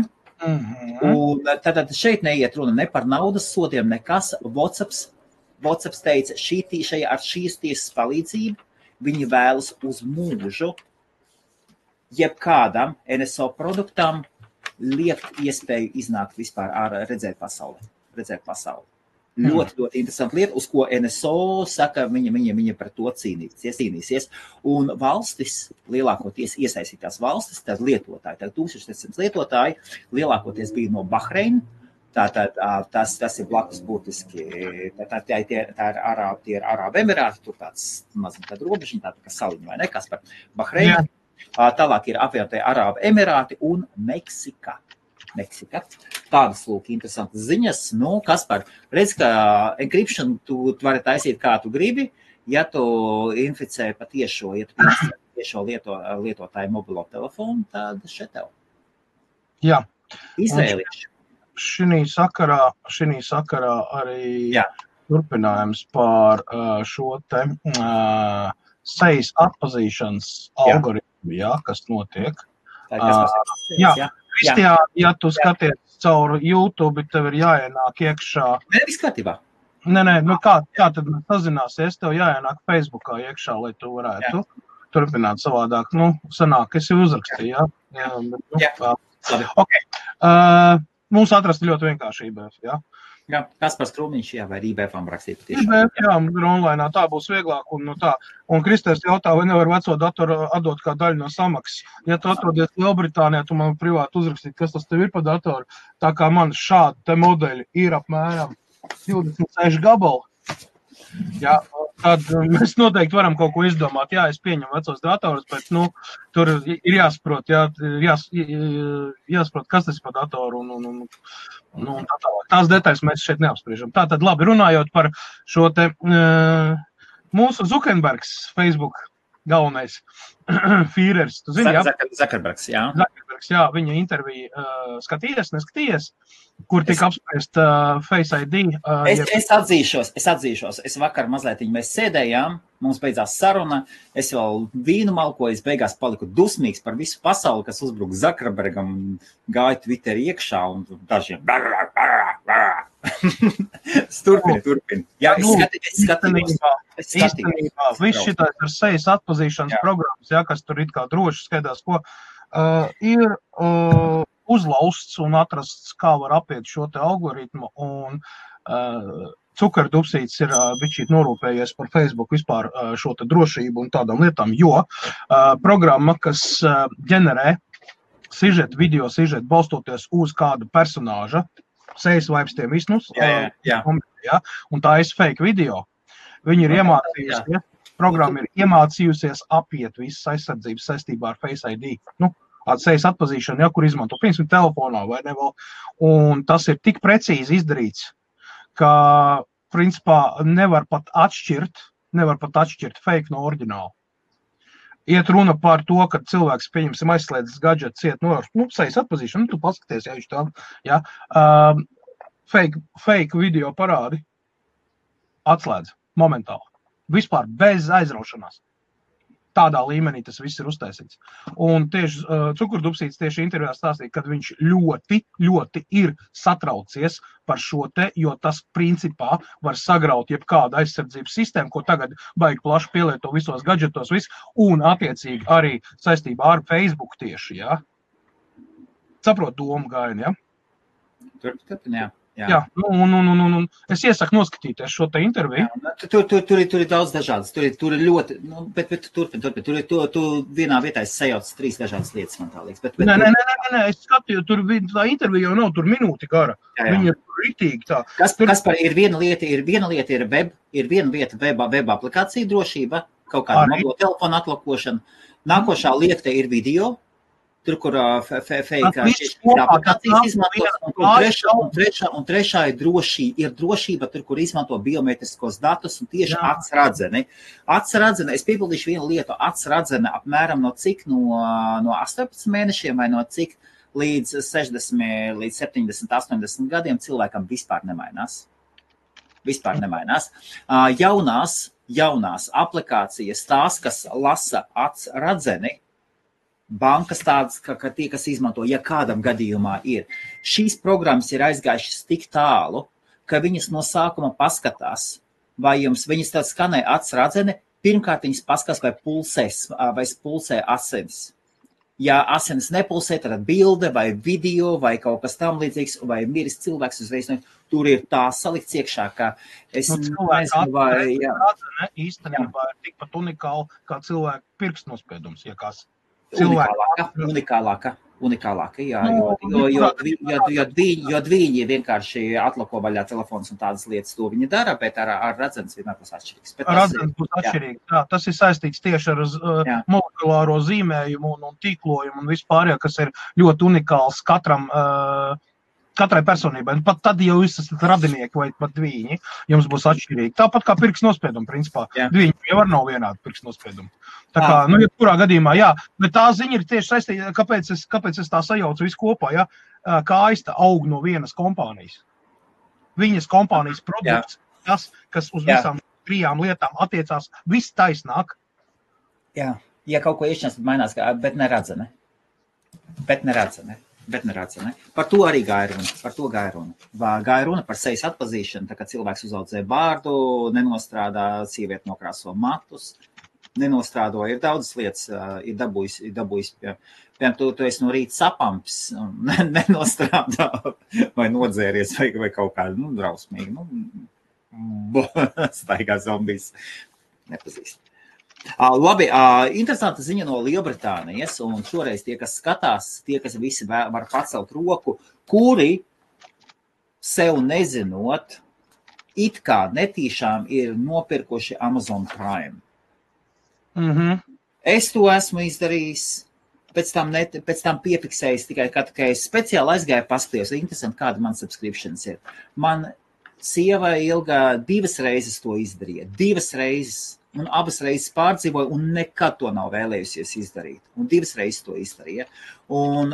Un tātad šeit neiet runa ne par naudas sodiem, nekas. WhatsApp WhatsApp teica, ar šīs tiesas palīdzību viņi vēlas uz mūžu jebkādam NSO produktam liekt iespēju iznākt vispār redzēt pasauli. Ļoti interesanta lieta, uz ko NSO saka, viņa par to cīnīsies. Un valstis, lielākoties iesaistītās valstis, tad lietotāji, tad 1700 lietotāji, lielākoties bija no Bahreina. Tātad tas ir blakus būtiski, tie ir Arābu Emirāti, tur tāds mazliet tāda robežiņa, tāda kā saliņa vai ne, kas par Bahreinu. Tālāk ir apvienotie Arābu Emirāti un Meksika. Tādas lūk interesantas ziņas. Nu, Kaspar, redz, ka encryption tu vari taisīt kā tu gribi, ja tu inficē patiešo, lietotāju mobilo telefonu, tad šeit tev. Jā. Izvēlīšu. Šinī sakarā arī turpinājums par šo te sejas atpazīšanas algoritmu, kas notiek. Kristiāna, ja tu skaties caur YouTube, tev ir jāienāk iekšā. Nē, viss kārtībā. Nē, kā tad mēs sazināsies, tev jāienāk Facebookā iekšā, lai tu varētu turpināt savādāk. Nu, sanāk, es jau uzrakstīju, Labi. Okay. Mums atrast ļoti vienkārši IBF, Jā, Kaspars Krūmiņš, vai IBF-am rakstīt patiešām. IBF, online, tā būs vieglāk un tā. Un Kristers jautā, vai nevar veco datoru atdot kā daļu no samaksas. Ja tu atrodies Lielbritānijā, tu man privāti uzrakstīt, kas tas tev ir pa datoru. Tā kā man šādi te modeļi ir apmēram 26 gabali. Jā, tad mēs noteikti varam kaut ko izdomāt. Jā, es pieņemu vecos datorus, bet, tur ir jāsaprot, jāsaprot, kas tas ir pa datoru un tā tālāk. Tās detaļas mēs šeit neapspriežam. Tātad, labi, runājot par šo te mūsu Zuckerbergs Facebook galvenais Führers. Tu zini, Zuckerbergs, viņa interviju neskatījies, kur tika apspriest Face ID. Es atzīšos. Es vakar mazliet mēs sēdējām, mums beidzās saruna, es vēl vīnu malkoju, es beigās paliku dusmīgs par visu pasauli, kas uzbruk Zuckerbergam, gāja Twitter iekšā un dažiem. Turpin. Jā, es skatījos. Īstenībā, viss šitās ar sejas atpazīšanas programmas, kas tur it kā droši skaidās, ko ir uzlausts un atrasts, kā var apiet šo te algoritmu, un Cukerdupsīts ir bišķīt norūpējies par Facebook vispār šo te drošību un tādām lietām, jo programma, kas ģenerē video sižetu balstoties uz kādu personāža, sejas vaipstiem visnus, un tā ir fake video. Viņi ir iemācījusies, programma ir iemācījusies apiet visas aizsardzības saistībā ar Face ID. Sejas atpazīšanu, kur izmanto, piemēram, telefonā vai ne vēl. Un tas ir tik precīzi izdarīts, ka, principā, nevar pat atšķirt fake no oriģināla. Iet runa par to, ka cilvēks, pieņemsim, aizslēdzis gadžetu ciet sejas atpazīšanu, tu paskaties, fake video parādi atslēdz momentāli. Vispār bez aizraušanās. Tādā līmenī tas viss ir uztaisīts. Un tieši Cukerdupsīts tieši intervijā stāstīja, ka viņš ļoti, ļoti ir satraucies par šo te, jo tas principā var sagraut jebkādu aizsardzības sistēmu, ko tagad baigi plaši pielieto visos gadžetos, un attiecīgi arī saistībā ar Facebook tieši, Saprot domu gājienu, Turpin, Jā, un es iesaku noskatīties šo te interviju. Tur ir daudz dažādas, tur ir ļoti, bet turpin, tu vienā vietā es sajaucu 3 dažādas lietas, man tā liekas. Nē, es skatīju, tur tā intervija jau nav, tur minūti gara. Viņa ir ritīgi tā. Kaspar, ir viena lieta ir web, ir viena vieta web aplikācija drošība, kaut kāda mobilo telefona atlakošana. Nākošā lieta ir video. Tur, kur fake aplikācijas izmantos, un trešā ir drošība, tur, kur izmanto biometriskos datus un tieši atsradzeni. Es piebildīšu vienu lietu, atsradzene apmēram no cik, no 18 mēnešiem vai no cik līdz 60, līdz 70, 80 gadiem cilvēkam vispār nemainās. Jaunās aplikācijas, tās, kas lasa atsradzeni, bankas tādas, ka tie, kas izmanto, ja kādam gadījumā ir. Šīs programmas ir aizgājušas tik tālu, ka viņas no sākuma paskatās, vai viņas tā skanē acs radzene, pirmkārt viņas paskatās, vai pulsē asins. Ja asins nepulsē, tad bilde vai video vai kaut kas tam līdzīgs, vai miris cilvēks uzreiz, tur ir tā salikts iekšā, ka es nezinu, vai radzene īstenībā ir tikpat unikāla kā cilvēka pirkstnospiedums, ja kas. Unikālāka, jā, jo viņi vienkārši atlako vaļā telefons un tādas lietas, to viņi dara, bet ar radzenes vienmēr būs atšķirīgs. Radzenes būs atšķirīgs, jā. Tas ir saistīts tieši ar molekulāro zīmējumu un tīklojumu un vispār, kas ir ļoti unikāls katrai personībai. Pat tad, ja jūs esat radinieki vai pat dviņi, jums būs atšķirīgi. Tāpat kā pirkstnospiedumi, principā. Dviņi jau var nav vienādi pirkstnospiedumi. Tā kā, jebkurā gadījumā, jā. Bet tā ziņa ir tieši saistīta, kāpēc es tā sajaucu visu kopā, jā. Kā aista aug no vienas kompānijas. Viņas kompānijas produkts, tas, kas uz visām 3 lietām attiecās, viss taisnāk. Jā, ja kaut ko iešķiens, tad mainās, bet neradzene. Par to arī gāja runa. Gāja runa par sejas atpazīšanu, tā kā cilvēks uzaudzē bārdu, nenostrādā, sieviete nokrāso matus, nenostrādo, ir daudzas lietas, ir dabūjis, piemēram, tu esi no rīta sapamps, nenostrādā, vai nodzēries, vai kaut kādu, drausmīgi, staigā zombijas, nepazīst. Labi, interesanta ziņa no Lielbritānijas, un šoreiz tie, kas skatās, tie, kas visi var pacelt roku, kuri sev nezinot, it kā netīšām ir nopirkuši Amazon Prime. Es to esmu izdarījis, pēc tam piefiksējis tikai, kad es speciāli aizgāju paskaties, interesanti, kāda man subscriptions ir. Man sieva Ilga 2 reizes to izdarīja, 2 reizes. Un abas reizes pārdzīvoja un nekad to nav vēlējusies izdarīt. Un 2 reizes to izdarīja. Un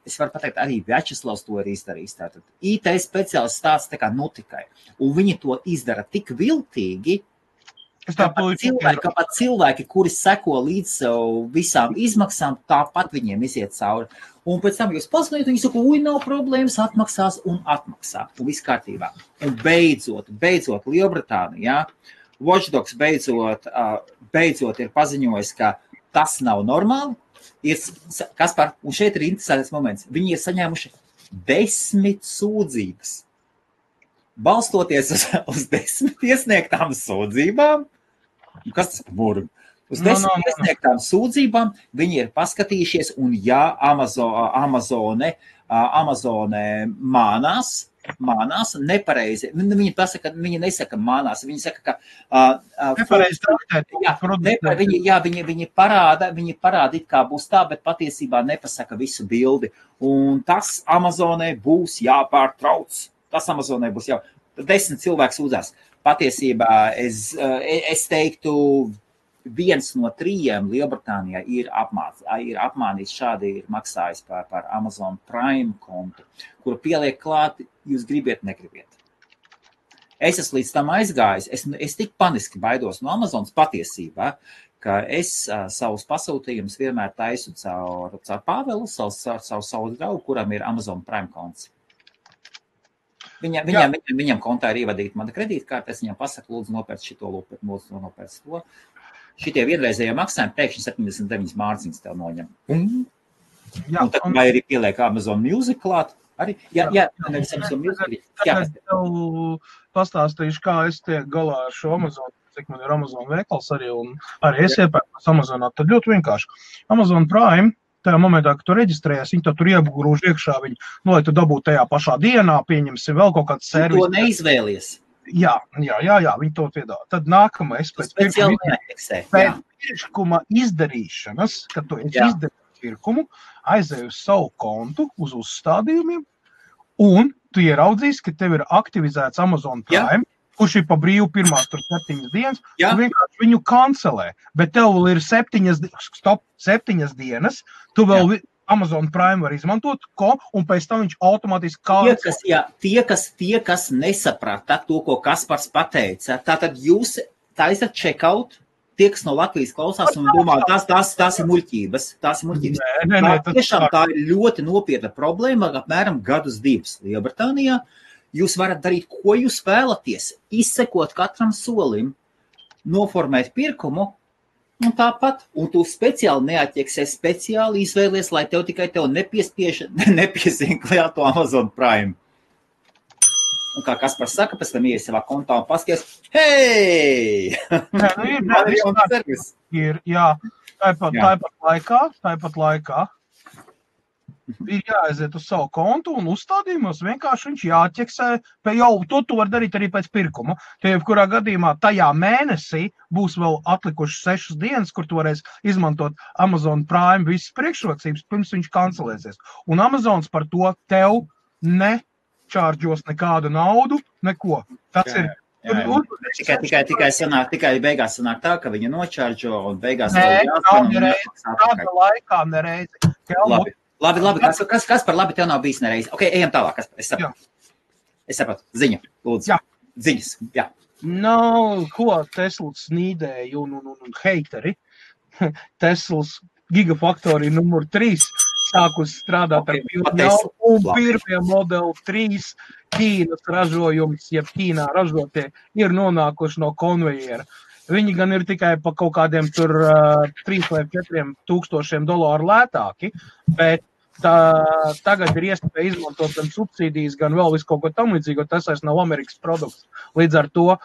es varu pateikt, arī Vjačeslavs to ir izdarījis. Tātad IT speciālists tāds tā kā notikai. Un viņi to izdara tik viltīgi, ka pat cilvēki, kuri seko līdz sev visām izmaksām, tāpat viņiem iziet cauri. Un pēc tam jūs paskatījāt, viņi saka, nav problēmas, atmaksās un atmaksā. Un viss kārtībā. Un beidzot Lielbritānijā, Watchdogs beidzot ir paziņojis, ka tas nav normāli. Kaspar, un šeit ir interesants moments. Viņi ir saņēmuši 10 sūdzības. Balstoties uz 10 iesniegtām sūdzībām, kas tas par burgu? Uz 10 iesniegtām sūdzībām viņi ir paskatījušies, un ja Amazone mānās nepareizi. Viņi nesaka mānās, viņi saka, ka nepareizi traktēt. Viņi parāda, it kā būs tā, bet patiesībā nepasaka visu bildi. Un tas Amazonē būs jāpārtrauc. 10 cilvēks sūdzās. Patiesībā es teiktu, 1 no 3 Lielbritānijā ir apmānīts, šādi ir maksājis par Amazon Prime kontu, kuru pieliek klāt, jūs gribiet, negribiet. Es esmu līdz tam aizgājis, es tik paniski baidos no Amazonas patiesībā, ka es savus pasūtījumus vienmēr taisu caur Pāvelu, savu draugu, kuram ir Amazon Prime konts. Viņam kontā ir ievadīta mana kredītkarte, es viņam pasaku, lūdzu nopērc šito, lūdzu nopērc to. Šitie vienreizējie maksājumi pēkšņi 79 mārciņas tev noņem. Un tad vai arī pieliek Amazon Music klāt? Arī? Jā, nevis Amazon Music. Es tev pastāstīšu, kā es tiek galā ar šo Amazon, cik man ir Amazon veikals arī, un arī es iepērkos Amazonā. Tad ļoti vienkārši. Amazon Prime, tajā momentā, kad tu reģistrējies, viņi tur iegrūž iekšā viņu, lai tu dabūtu tajā pašā dienā, pieņemsi vēl kaut kāds servis. To neizvēlies. Jā, viņi to piedāvā. Tad nākamais pēc pirkuma izdarīšanas, kad tu izdarīji pirkumu, aizēji uz savu kontu, uz uzstādījumiem, un tu ieраudzīsi, ka tev ir aktivizēts Amazon Prime, kurš ir pa brīvu pirmās 7 dienas, tu vienkārši viņu kancelē, bet tev vēl ir 7 dienas, tu vēl Amazon Prime var izmantot, un pēc tam viņš automātiski kancelē. Tie, kas nesaprata to, ko Kaspars pateica, tātad jūs taisat checkout, tie, kas no Latvijas klausās un domā, tās ir muļķības. Tiešām tā ir ļoti nopietna problēma, apmēram 2 gadus Lielbritānijā, Jūs varat darīt, ko jūs vēlaties, izsekot katram solim, noformēt pirkumu, un tāpat, un tu speciāli neatķeksē, speciāli izvēlies, lai tev nepiesien klāt to Amazon Prime. Un kā Kaspars saka, pēc tam ies savā kontā un paskaties, hei! Ir, jā, tāpat laikā ir jāaiziet uz savu kontu un uzstādījumos vienkārši viņš jāķeksē, to var darīt arī pēc pirkuma. Tie, kurā gadījumā tajā mēnesī būs vēl atlikuši 6 dienas, kur tu varēsi izmantot Amazon Prime visas priekšrocības, pirms viņš kancelēsies. Un Amazons par to tev nečārģos nekādu naudu, neko. Tas ir... Tikai beigās sanāk tā, ka viņa nočārģo un beigās... Tāda laikā nereizi. Labi. Kas par labi tev nav bijis nereiz? Ok, ejam tālāk. Es sapratu. Ziņa, lūdzu. Jā. Ziņas, jā. Ko Teslas nīdēja un heiteri. Teslas Gigafactory numur 3 sākus strādāt ar un pirmie Model 3 Ķīnas ražojums, jeb Ķīnā ražotie, ir nonākuši no konvejera. Viņi gan ir tikai pa kaut kādiem tur 3 vai 4 tūkstošiem dolāru lētāki, bet tagad ir iespēja izmantot gan subsīdijas, gan vēl visu kaut ko tam līdzīgu, tas vairs nav Amerikas produkts. Līdz ar to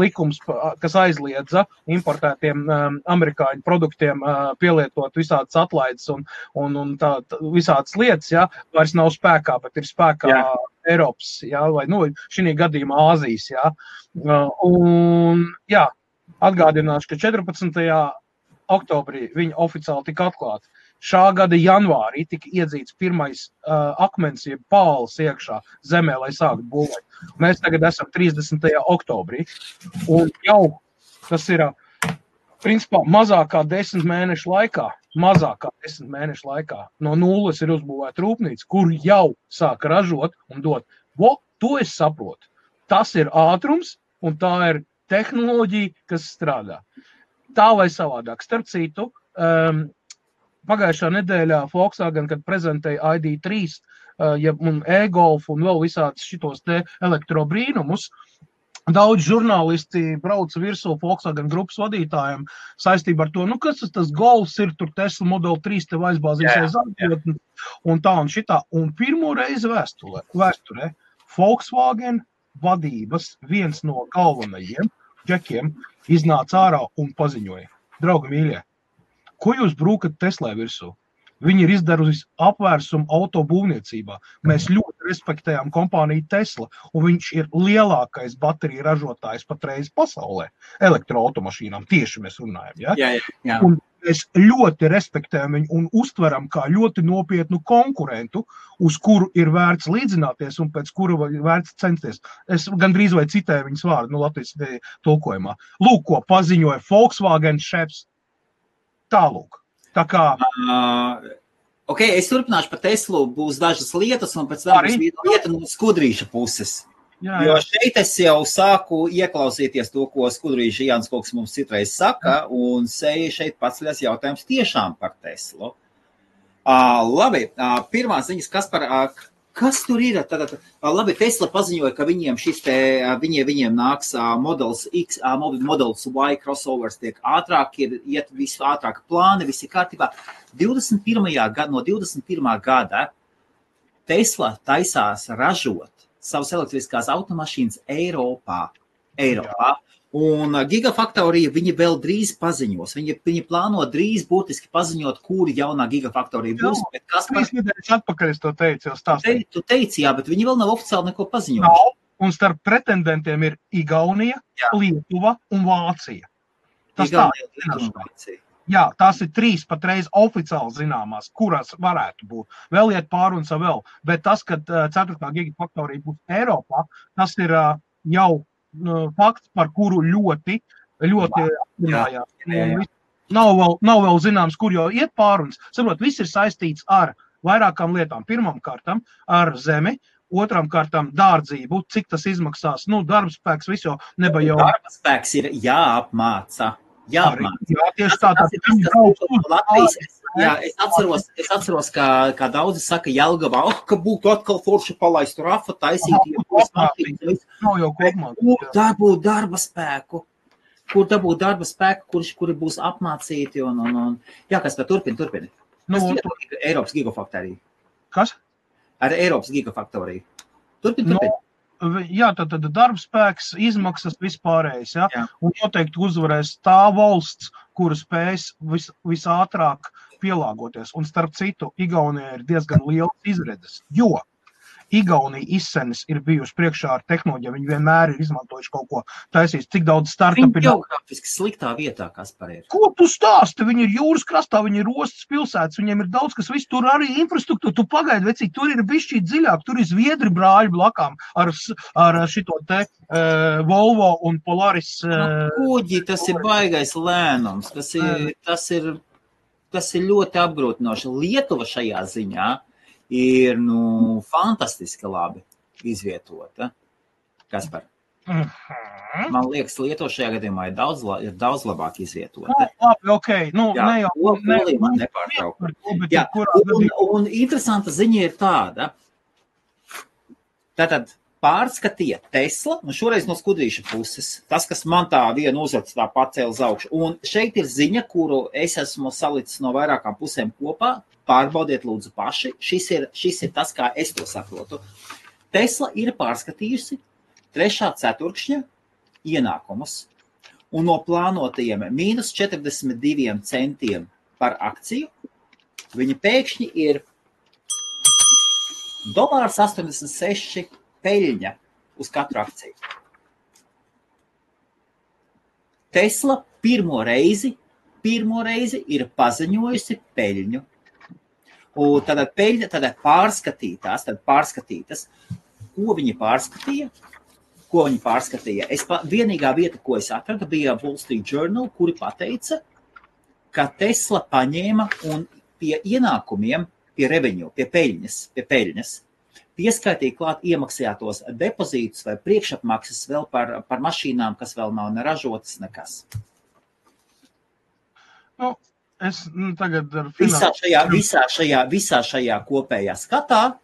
likums, kas aizliedza importētiem amerikāņu produktiem pielietot visādas atlaides un visādas lietas, ja, vairs nav spēkā, bet ir spēkā Eiropas, ja, vai šī gadījumā Āzijas. Ja. Atgādināšu, ka 14. oktobrī viņi oficiāli tika atklāti. Šā gada janvārī tika iedzīts pirmais akmens, jeb pāls iekšā zemē, lai sāktu būvēt. Mēs tagad esam 30. oktobrī, un jau tas ir, principā, mazākā 10 mēnešu laikā, no nulles ir uzbūvēta rūpnīca, kur jau sāk ražot un dot. To es saprotu. Tas ir ātrums, un tā ir tehnoloģija, kas strādā. Tā vai savādāk. Starp citu, pagājušā nedēļā Volkswagen, kad prezentēja ID3 un e-golf un vēl visādus šitos te elektrobrīnumus, daudz žurnālisti brauca virsū Volkswagen grupas vadītājiem saistībā ar to, kas tas golfs ir, tur Tesla Model 3 tev aizbāzīsies atļot un tā un šitā. Un pirmo reizi vēsturē Volkswagen vadības viens no galvenajiem džekiem iznāca ārā un paziņoja. Draugi mīļie, ko jūs brūkat Teslai virsū? Viņi ir izdarījusi apvērsumu autobūvniecībā. Mēs ļoti respektējām kompāniju Tesla, un viņš ir lielākais bateriju ražotājs patreiz pasaulē. Elektroautomašīnām tieši mēs runājam. Ja? Jā. Un mēs ļoti respektējam viņu un uztveram kā ļoti nopietnu konkurentu, uz kuru ir vērts līdzināties un pēc kura vērts censties. Es gandrīz vai citēju viņas vārdu, Latvijas tulkojumā. Lūk, ko paziņoja Volkswagen šefs. Tālūk. Tā kā... Ok, es turpināšu par Teslu, būs dažas lietas, un pēc tam būs lieta no Skudrīša puses. Jā. Jo šeit es jau sāku ieklausīties to, ko Skudrīša Jānis kaut kas mums citreiz saka, un šeit paceļas jautājums tiešām par Teslu. Labi, pirmā ziņas, kas tur ir? Labi, Tesla paziņoja, ka viņiem nāks Models X, Models Y crossovers tiek ātrāk, iet visu ātrāk plāni, visi kārtībā. No 21. gada Tesla taisās ražot savas elektriskās automašīnas Eiropā. Un Gigafactory viņi vēl drīz paziņos. Viņi plāno drīz būtiski paziņot, kuri jaunā Gigafactory būs. 3 nedēļas atpakaļ es to teicu, jau stāstīju. Tu teici, jā, bet viņi vēl nav oficiāli neko paziņojuši. Nav, un starp pretendentiem ir Igaunija, Lietuva un Vācija. Jā, tās ir 3 patreiz oficiāli zināmās, kurās varētu būt. Vēl iet pārunas vēl, bet tas, ka 4. Gigafactory būs Eiropā, tas ir jau fakts, par kuru ļoti apzinājās. Nav vēl zināms, kur jau iet pārunas. Saprot, viss ir saistīts ar vairākām lietām. Pirmam kārtam ar zemi, otram kārtam dārdzību, cik tas izmaksās. Darbspēks visu nebajau. Darbspēks ir jāapmāca. jāapmāca. Jā, tieši tā. Latvijas. Jā, es atceros, kā daudzi saka Jelgavā, ka būtu atkal forši palaist rafa, taisīt. Nav jau kopumā. Kur dabūt darba spēku? Kuri būs apmācīti un. Jā, kas tā turpini. Eiropas gigafaktorija. Kas? Ar Eiropas gigafaktoriju. Turpini. Jā, tad darbspēks, izmaksas vispārējais, jā? Jā. Un noteikti uzvarēs tā valsts, kura spējas visātrāk pielāgoties. Un starp citu, Igaunijā ir diezgan liels izredzes, jo Igaunija izsenis ir bijuši priekšā ar tehnoloģiju, viņi vienmēr ir izmantojuši kaut ko taisīs, cik daudz startup ir. Viņi geogrāfiski sliktā vietā, Kaspar ir. Ko tu stāsti? Viņi ir jūras krastā, viņi ir ostas pilsētas, viņiem ir daudz, kas viss tur arī infrastruktūra. Tu pagaidi, vecīgi, tur ir bišķīt dziļāk, tur ir Zviedri brāļi blakām ar šito te Volvo un Polaris. Kuģi, tas ir baigais lēnums, tas ir ļoti apgrūtinoši. Lietuva šajā ziņā ir, fantastiski labi izvietota. Kaspar? Man liekas, Lietuva šajā gadījumā ir daudz labāk izvietota. Labi, okei. Man nepārtraukt. Un interesanta ziņa ir tāda. Tātad pārskatīja Tesla, un šoreiz no skudrīša puses. Tas, kas man tā vienu uzvads tā pacēla uz augšu. Un šeit ir ziņa, kuru es esmu salicis no vairākām pusēm kopā. Pārbaudiet lūdzu paši. Šis ir tas, kā es to saprotu. Tesla ir pārskatījusi 3. ceturkšņa ienākumus un no plānotajiem -42 centiem par akciju viņa pēkšņi ir $1,86 peļņa uz katru akciju. Tesla pirmo reizi ir paziņojusi peļņu. Un tad peļņa, tad pārskatītas, ko viņi pārskatīja. Vienīgā vieta, ko es atradu, bija Wall Street Journal, kuri pateica, ka Tesla paņēma un pie ienākumiem, pie revenue, pie peļņas, pieskaitīja klāt iemaksātos depozītus vai priekšapmaksas vēl par mašīnām, kas vēl nav neražotas nekas. Es tagad ar visā šajā kopējā skatā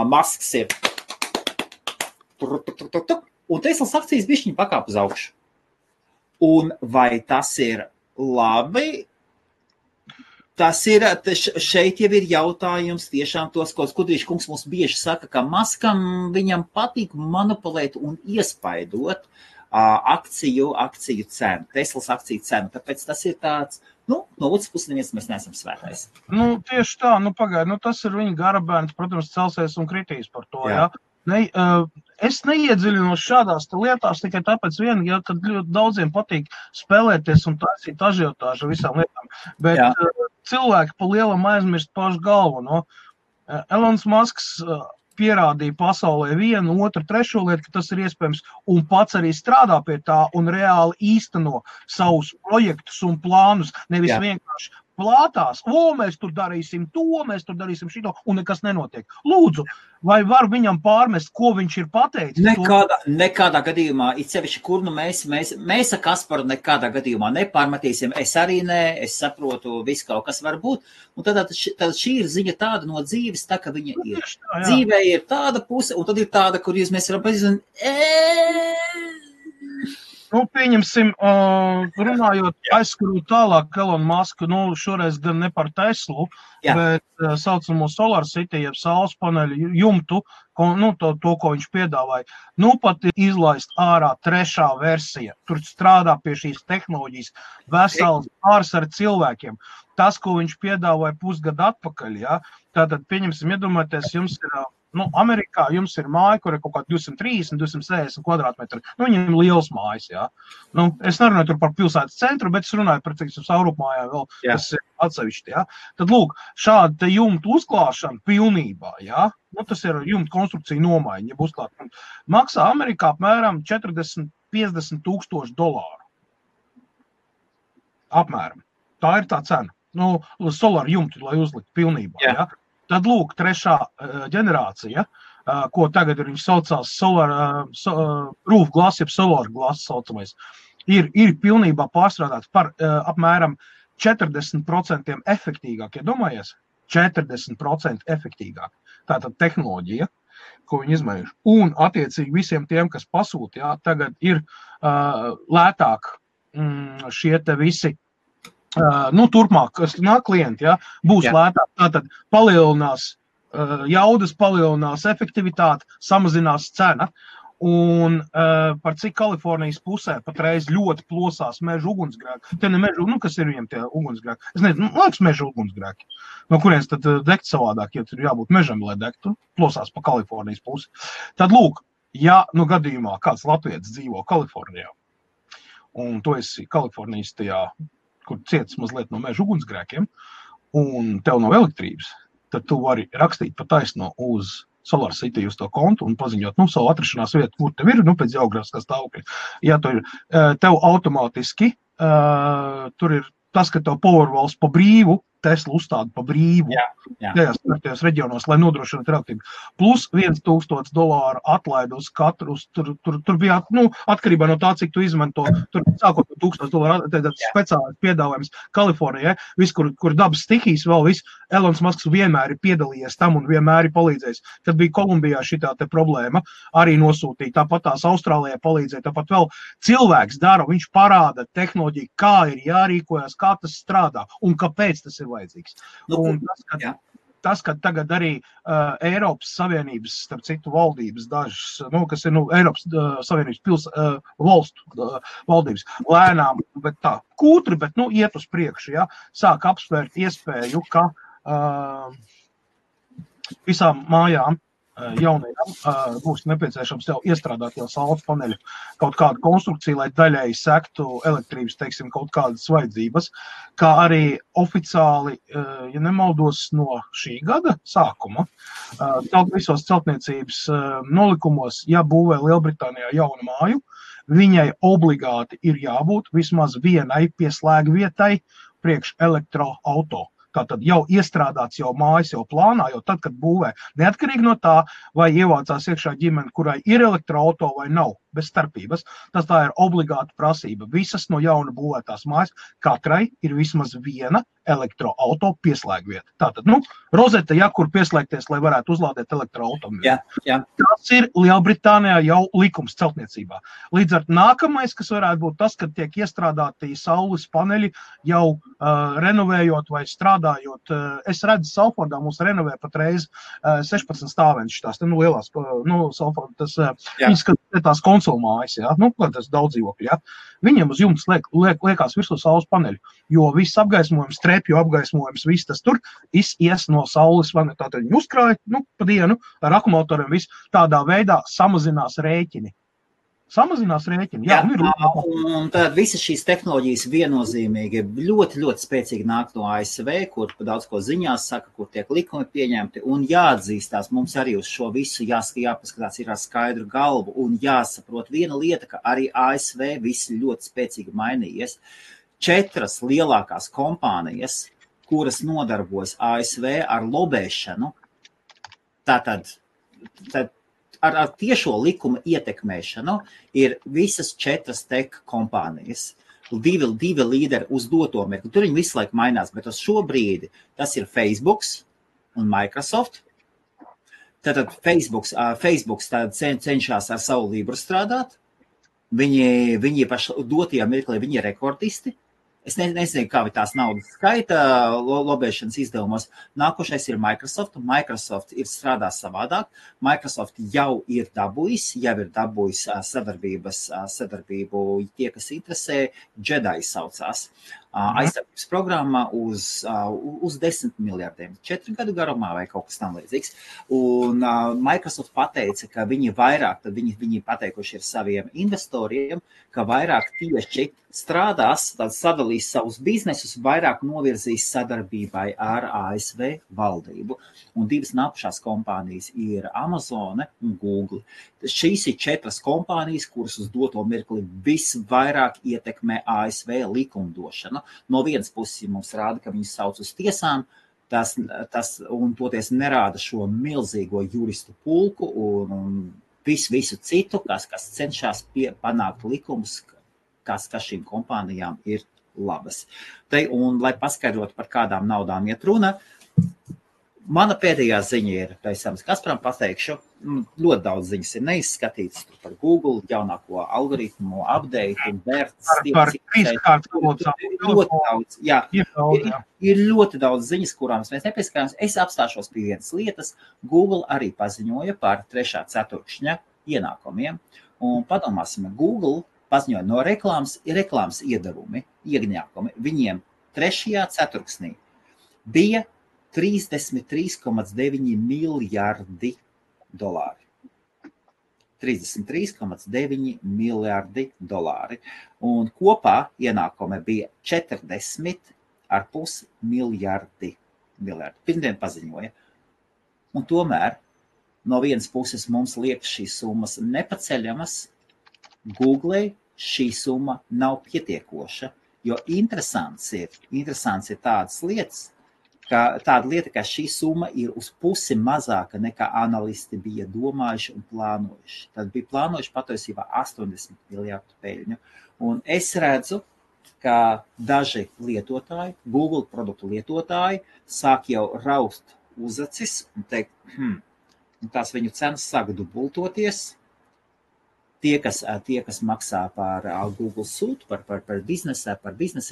Masks ir un Teslas akcijas bišķiņi pakāp uz augšu. Un vai tas ir labi? Tas ir, šeit jau ir jautājums tiešām tos, ko Skudrīša kungs mums bieži saka, ka Maskam viņam patīk manipulēt un iespaidot akciju cenu, Teslas akciju cenu. Tāpēc tas ir tāds, no otras puses neviens mēs neesam svētais. Tieši tā, pagaidi, tas ir viņa garabērns, protams, celsies un kritīs par to, jā. Es neiedziļinos šādās lietās tikai tāpēc kad ļoti daudziem patīk spēlēties un taisīt ažiotāžu visām lietām, bet cilvēki pa lielam aizmirst pašu galvu, Elons Musks pierādīja pasaulē vienu, otru, trešo lietu, ka tas ir iespējams, un pats arī strādā pie tā un reāli īsteno savus projektus un plānus, nevis vienkārši plātās, mēs tur darīsim to, mēs tur darīsim šito, un nekas nenotiek. Lūdzu, vai var viņam pārmest, ko viņš ir pateicis? Nekādā gadījumā, it sevišķi, kur mēs ar Kasparu nekādā gadījumā nepārmetīsim, es arī ne, es saprotu, viss kaut kas var būt, un tad šī ir ziņa tāda no dzīves, tā, ka viņa ir. Dzīvē ir tāda puse, un tad ir tāda, kur mēs varam pazīstināt, pieņemsim, runājot, aizskarot tālāk Elonu Musku, šoreiz gan ne par Teslu, bet saucamo Solar City, jeb saules paneļu jumtu, to, ko viņš piedāvāja. Pat ir izlaist ārā 3. versija. Tur strādā pie šīs tehnoloģijas vesels pāris ar cilvēkiem. Tas, ko viņš piedāvāja pusgadu atpakaļ, tātad, pieņemsim, iedomājieties, jums ir Amerikā jums ir māja, kur ir kaut kā 230, 260 kvadrātmetri. Viņiem ir liels mājas, es nerunāju tur par pilsētas centru, bet es runāju par, Saurupmājā vēl, kas ir atsevišķi, Tad, lūk, šāda te jumta uzklāšana pilnībā, tas ir jumta konstrukcija nomaiņa, ja uzklāt. Maksā Amerikā apmēram $40–50 tūkstoši. Apmēram. Tā ir tā cena. Solar jumtu, lai uzlikt pilnībā, Tad, lūk, 3. ģenerācija, ko tagad viņš saucās Solar Roof Glass, jeb Solar Glass saucamais. ir pilnībā pārstrādāts par apmēram 40% efektīgāk, iedomājies? 40% efektīgāk. Tātad tehnoloģija, ko viņi izmējuši. Un attiecīgi visiem tiem, kas pasūta, jā, tagad ir lētāk šie te visi, turpmāk, kas nāk klienti, jā, būs lētāk. Tātad palielinās jaudas, palielinās efektivitāte, samazinās cena. Un par cik Kalifornijas pusē patreiz ļoti plosās meža ugunsgrēki. Te ne meža, kas ir viņiem tie ugunsgrēki? Es nezinu, liekas meža ugunsgrēki. No kurienes tad degt savādāk, ja tur jābūt mežam, lai degtu, plosās pa Kalifornijas pusi. Tad lūk, ja gadījumā kāds latvietis dzīvo Kalifornijā, un tu esi Kalifornijas tajā, kur cietis mazliet no meža ugunsgrēkiem, un tev nav elektrības, tad tu vari rakstīt pa taisno uz Solar City uz to kontu un paziņot, savu atrašanās vietu, kur tev ir, pēc geogrāfiskā stāvokļa. Ja tu ir, tev automātiski, tur ir tas, ka tev Powerwalls pa brīvu, Tesla uzstāda pa brīvu, tajās reģionos, lai nodrošinātu elektrību. Plus $1,000 atlaidi uz katru, tur bija, atkarībā no tā, cik tu izmanto, tur sākot no $1,000, tad speciālais piedāvājums Kalifornijai, viss, kur dabas stihijas vēl viss, Elons Musks vienmēr ir piedalījies tam un vienmēr ir palīdzējis. Kad bija Kolumbijā šitā te problēma, arī nosūtīja, tāpat tās Austrālijā palīdzēja, tāpat vēl cilvēks dara, viņš parāda tehnoloģiju, kā ir jārīkojas, kā tas strādā un kāpēc tas ir vajadzīgs. Un tas, ka tagad arī Eiropas Savienības, starp citu, valdības dažas, kas ir Eiropas Savienības valstu valdības, lēnām, bet tā, kūtri, bet iet uz priekšu, sāk apsvērt iespēju, ka visām mājām jaunajām būs nepieciešams jau iestrādāt jau saules paneļu kaut kādu konstrukciju, lai daļēji sektu elektrības, teiksim, kaut kādas vajadzības, kā arī oficiāli, ja nemaldos, no šī gada sākuma, visos celtniecības nolikumos, ja būvē Lielbritānijā jaunu māju, viņai obligāti ir jābūt vismaz vienai pieslēgvietai priekš elektroauto. Tātad jau iestrādāts jau mājas, jau plānā, jau tad, kad būvē, neatkarīgi no tā, vai ievācās iekšā ģimene, kurai ir elektroauto vai nav, bez starpības. Tas tā ir obligāta prasība. Visas no jauna būvētās mājas, katrai ir vismaz viena elektroauto pieslēgvieta. Tātad, rozete, kur pieslēgties, lai varētu uzlādēt elektroautomobili. Tas ir Lielbritānijā jau likums celtniecībā. Līdz ar nākamais, kas varētu būt tas, kad tiek iestrādāti saules paneļi jau renovējot vai strādājot. Es redzu, Salfordā mums renovē patreiz 16 stāvenšas tās, lielās, Salfordā, viņas, tās konsolmājas, tas daudz dzīvokļi, viņiem uz jumtas liekās virsū saules paneļu, jo viss apgaismojums, trepju apgaismojums, viss tas tur ies no saules, tātad viņi uzkrāja, pa dienu ar akumulatoriem viss tādā veidā samazinās rēķini. Un tad visas šīs tehnoloģijas viennozīmīgi ļoti, ļoti spēcīgi nāk no ASV, kur daudz ko ziņās saka, kur tiek likumi pieņemti, un jāatzīstās, mums arī uz šo visu jāpaskatās ir ar skaidru galvu, un jāsaprot viena lieta, ka arī ASV viss ļoti spēcīgi mainījies. 4 lielākās kompānijas, kuras nodarbojas ASV ar lobēšanu, tātad ar tiešo likuma ietekmēšanu ir visas 4 tech kompānijas. 2 līderi uz doto mirkli. Tur viņi visu laiku mainās, bet uz šo brīdi tas ir Facebook un Microsoft. Tātad Facebook cenšas ar savu Libru strādāt. Viņi paši dotajā mirklī, viņi ir rekordisti. Es nezinu, kā tās naudas skaita lobēšanas izdevumos. Nākošais ir Microsoft, un Microsoft ir strādās savādāk. Microsoft jau ir dabūjis sadarbību, tie, kas interesē, Jedi saucās. Aizsardzības programma uz 10 miljardiem, 4 gadu garumā vai kaut kas tam līdzīgs. Un Microsoft pateica, ka viņi pateikuši ir saviem investoriem, ka vairāk tieši strādās, sadalīs savus biznesus, vairāk novirzīs sadarbībai ar ASV valdību. Un 2 nākušās kompānijas ir Amazone un Google. Šīs ir 4 kompānijas, kuras uz doto mirkli visvairāk ietekmē ASV likumdošanu. No vienas puses mums rāda, ka viņus sauc uz tiesām, tas un toties nerāda šo milzīgo juristu pulku un visu citu, kas cenšas panākt likumus, kas šīm kompānijām ir labas. Un, lai paskaidrotu, par kādām naudām iet runa, mana pēdējā ziņa ir, pēc Kasparam pateikšu, ļoti daudz ziņas ir neizskatītas par Google, jaunāko algoritmu, update, vērts, ir ļoti daudz ziņas, kurām mēs nepieskārāmies. Es apstāšos pie vienas lietas. Google arī paziņoja par 3. ceturkšņa ienākumiem. Un padomāsim, Google paziņoja no reklāmas iedevumi, iegņākumi. Viņiem 3. ceturksnī bija 33,9 miljardi dolāri. 33,9 miljardi dolāri. Un kopā ienākumi bija 40,5 miljardi. Pirmdien paziņoja. Un tomēr no vienas puses mums liekas šīs summas nepaceļamas. Google šī summa nav pietiekoša, jo interesants ir tādas lietas, tāda lieta, ka šī summa ir uz pusi mazāka nekā analisti bija domājuši un plānojuši. Tad bija plānojuši patiesībā 80 miljardu peļņu. Un es redzu, ka daži lietotāji, Google produktu lietotāji, sāk jau raust uzacis un teikt, tās viņu cenas sāk dubultoties. Tie, kas maksā par Google sūtu, par biznesa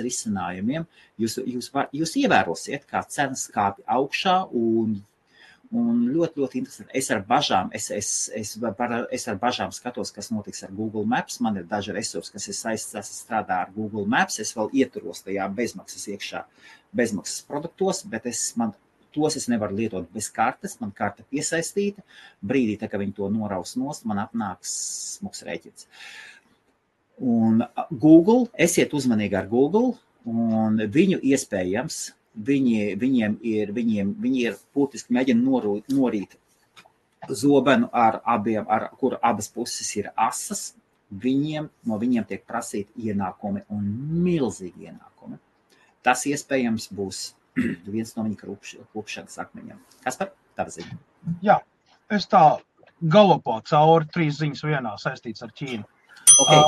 risinājumiem, jūs ievērosiet, kā cenas kāpj augšā un ļoti, ļoti interesanti. Es ar bažām skatos, kas notiks ar Google Maps. Man ir daži resursi, kas ir saistīti strādā ar Google Maps. Es vēl ieturos tajā bezmaksas produktos, bet tos es nevaru lietot bez kartes, man karte piesaistīta. Brīdī, ka viņi to noraus nost, man apnāks smuks rēķins. Un Google, esiet uzmanīgi ar Google, un viņu iespējams, viņi ir būtiski mēģina norīt zobenu kur abas puses ir asas, no viņiem tiek prasīti ienākumi un milzīgi ienākumi. Tas iespējams būs viens no viņa klupšanas akmeņiem. Kaspar, tava ziņa? Jā, es tā galopā cauri 3 ziņas vienā saistīts ar Ķīnu. Okay.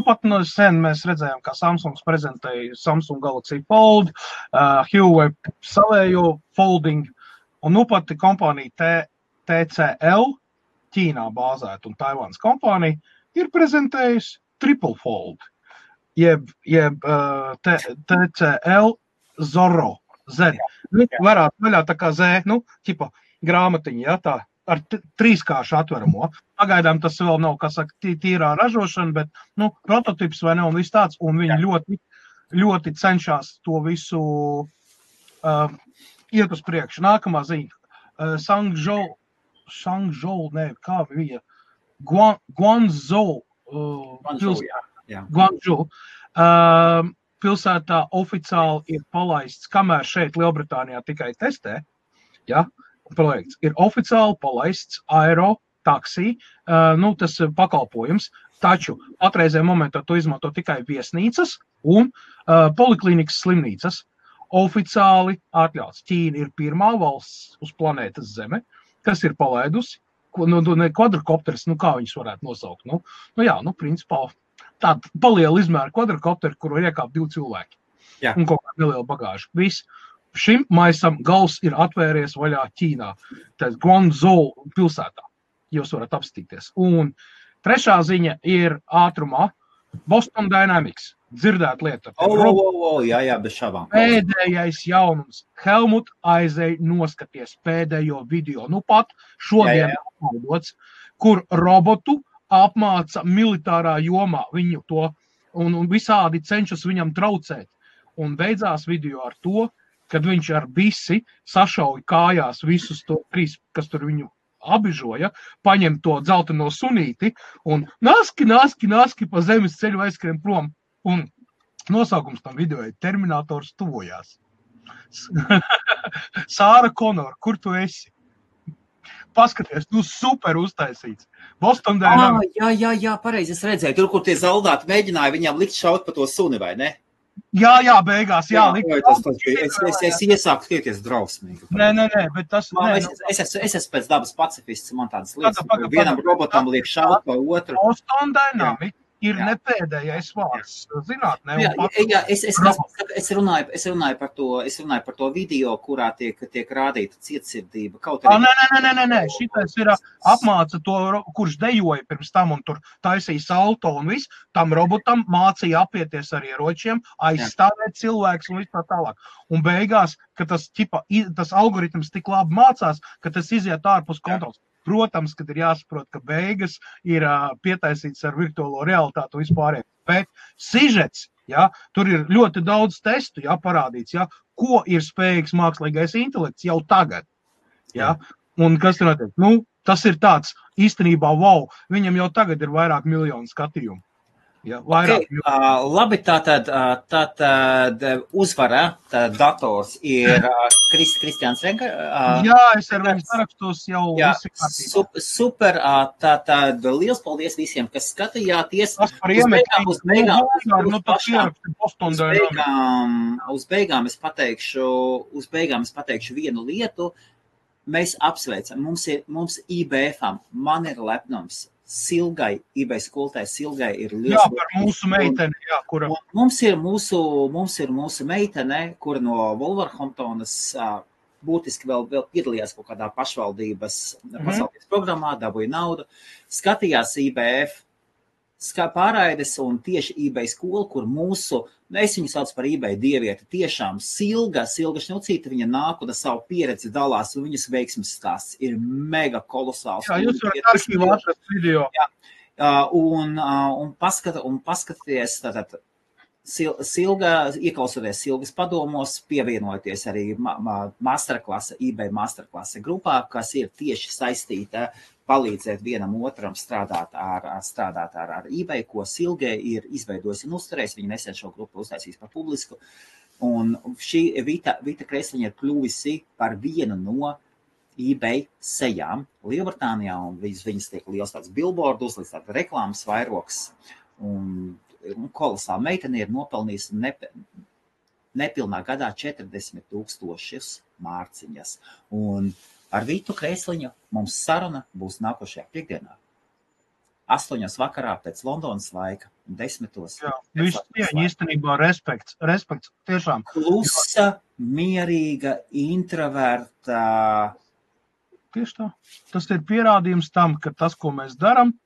Pat no sen mēs redzējām, kā Samsungs prezentēja Samsung Galaxy Fold, Huawei savējo folding, un pat kompānija TCL, Ķīnā bāzēta un Taivānas kompānija, ir prezentējusi Triple Fold, jeb TCL Zorro. Z. Varētu vaļā tā kā Z, grāmatiņa, ja, tā ar 3-kāršu atveramo. Pagaidām tas vēl nav, kā saka, tīrā ražošana, bet, prototips vai ne, un viss tāds, un viņi ļoti, ļoti cenšas to visu iet uz priekšu. Nākamā ziņa. Shangzhou, kā bija? Guangzhou. Guangzhou. Pilsētā oficiāli ir palaists, kamēr šeit Lielbritānijā tikai testē, ja, projekts, ir oficiāli palaists aero taksī, tas pakalpojums, taču patreizē momentā to izmanto tikai viesnīcas un poliklīnikas slimnīcas. Oficiāli atļauts. Ķīna ir pirmā valsts uz planētas Zeme, kas ir palaidusi, kvadrokopteris, kā viņus varētu nosaukt. Principā, tāda paliela izmēra kvadrokopteri, kuru iekāp 2 cilvēki. Jā. Un kaut kāda neliela bagāža. Viss. Šim maisam gals ir atvērties vaļā Ķīnā. Tā Guangzhou pilsētā. Jūs varat apstīties. Un 3. ziņa ir ātrumā. Boston Dynamics. Dzirdēt lieta. Jā, bez šābām. Pēdējais jaunums. Helmut aizēja noskaties pēdējo video. Pat šodien apmaudots, kur robotu apmāca militārā jomā viņu to un visādi cenšas viņam traucēt. Un beidzās video ar to, kad viņš ar bisi sašauja kājās visus to 3, kas tur viņu abižoja, paņem to dzelteno sunīti un naski pa zemes ceļu aizskrien prom. Un nosaukums tam video ir Terminators tuvojās. Sāra Konor, kur tu esi? Paskaties, super uztaisīts. Boston Dynamics. Jā, pareizi, es redzēju. Tur, kur tie zaldāti mēģināja viņam likt šaut pa to suni, vai ne? Jā, beigās, jā. Es iesāku skieties drausmīgi. Nē, bet tas... Es esmu pēc dabas pacifists, man tādas lietas. Vienam robotam liek šaut pa otru. Boston Dynamics ir ne pēdējais vārds zinātnē. Es runāju par to video, kurā tiek rādīta cietsirdība. Nē. Šitais ir apmāca to, kurš dejoja pirms tam un tur taisīja salto un viss. Tam robotam mācīja apieties ar ieročiem, aizstāvēt cilvēks un viss tā tālāk. Un beigās, ka tas algoritms tik labi mācās, ka tas iziet ārpus kontrols. Protams, kad ir jāsaprot, ka beigas ir pietaisīts ar virtuālo realitātu vispārēj. Bet sižets, tur ir ļoti daudz testu, parādīts, ko ir spējīgs mākslīgais intelekts jau tagad. Un kas tur notiek? Tas ir tāds īstenībā, wow, viņam jau tagad ir vairāk miljonu skatījumu. Labi, tātad uzvara dators ir Kristiāns Renka. Es ar viņu sarakstos jau visi kārtībā. Super, tātad liels paldies visiem, kas skatījāties. Uz beigām es pateikšu vienu lietu. Mēs apsveicam, mums IBF-am, man ir lepnums. Silgai, eBay skolotājai Silgai ir liels. Par mūsu meiteni, kura. Mums ir mūsu meitene, kura no Wolverhamptonas būtiski vēl piedalījās kaut kādā pašvaldības pasaules programmā, dabūja naudu, skatījās IBF pārraides un tieši eBay skola, kur es viņu sauc par eBay dievieti, tiešām Silga Šņucīte, viņa nāk un savu pieredzi dalās, un viņas veiksmes stāsts ir mega kolosāls. Jūs varat arhīvā atrast video. Un paskatieties, tātad Silga, ieklausoties Silgas padomos, pievienoties arī eBay masterklase grupā, kas ir tieši saistīta palīdzēt vienam otram strādāt ar eBay, ko Silge ir izveidojusi un uzturējusi. Viņa nesen šo grupu uztaisīs par publisku. Un šī Vita Kreisliņa ir kļuvusi par vienu no eBay sejām Lielbritānijā, un viņas tiek liels tāds billboard uzliks, tāds reklāmas vairoks. Un kolosāla meitene ir nopelnījusi nepilnā gadā 40,000 mārciņas. Un ar Vitu Kreisliņu mums saruna būs nākošajā piekdienā. 8 vakarā pēc Londonas laika, 10. Viss cieņa, īstenībā respekts, tiešām. Klusa, mierīga, introverta. Tieši tā. Tas ir pierādījums tam, ka tas, ko mēs daram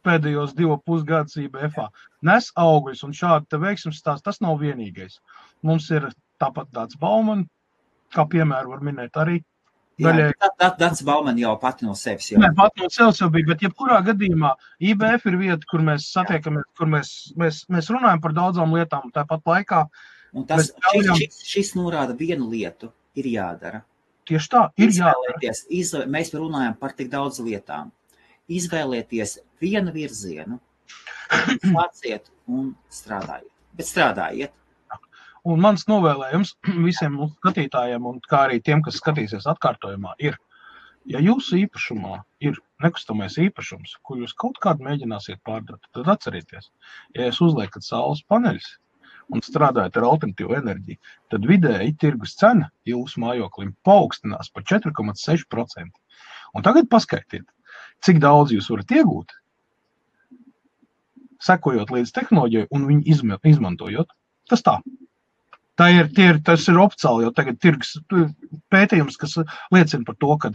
pēdējos 2,5 gadus IBF-ā, nes augļus, un šādi te veiksmes stāsts, tas nav vienīgais. Mums ir tāpat Dāts Bauman, kā piemēru var minēt arī. Dāts Bauman jau pati no sevis jau. Nē, pati no sevis jau bija, bet jebkurā gadījumā IBF ir vieta, kur mēs satiekamies, kur mēs runājam par daudzām lietām, tāpat laikā. Un šis norāda vienu lietu, ir jādara. Tieši tā, ir jādara. Mēs runājam par tik daudz lietām. Izvēlieties vienu virzienu, sāciet un strādājiet. Bet strādājiet. Un mans novēlējums visiem skatītājiem, un kā arī tiem, kas skatīsies atkārtojumā, ir, ja jūsu īpašumā ir nekustamais īpašums, ko jūs kaut kādu mēģināsiet pārdot, tad atcerieties, ja jūs uzliekat saules paneļus un strādājat ar alternatīvu enerģiju, tad vidēji tirgus cena jūsu mājoklim paaugstinās par 4,6%. Un tagad paskaitiet, cik daudz jūs varat iegūt, sekojot līdz tehnoloģijai un viņu izmantojot. Tas tā. Tas ir oficiāli jau tagad tirgus pētījums, kas liecina par to, ka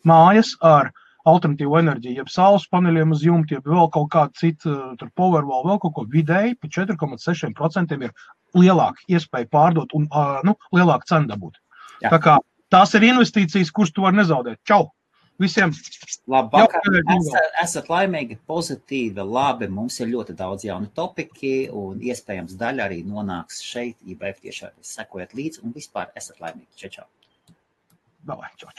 mājas ar alternatīvu enerģiju, jeb saules paneļiem uz jumta, jeb vēl kaut kādu citu, tur Powerwall, vēl kaut ko vidēji, pa 4,6% ir lielāka iespēja pārdot un lielāka cena dabūt. Jā. Tā kā tās ir investīcijas, kuras tu vari nezaudēt. Čau! Visiem! Labvakar! Esat laimīgi, pozitīvi, labi. Mums ir ļoti daudz jauni topiki un iespējams daļa arī nonāks šeit. IBF tiešām sekojiet līdzi un vispār esat laimīgi. Čau! Davai, čau!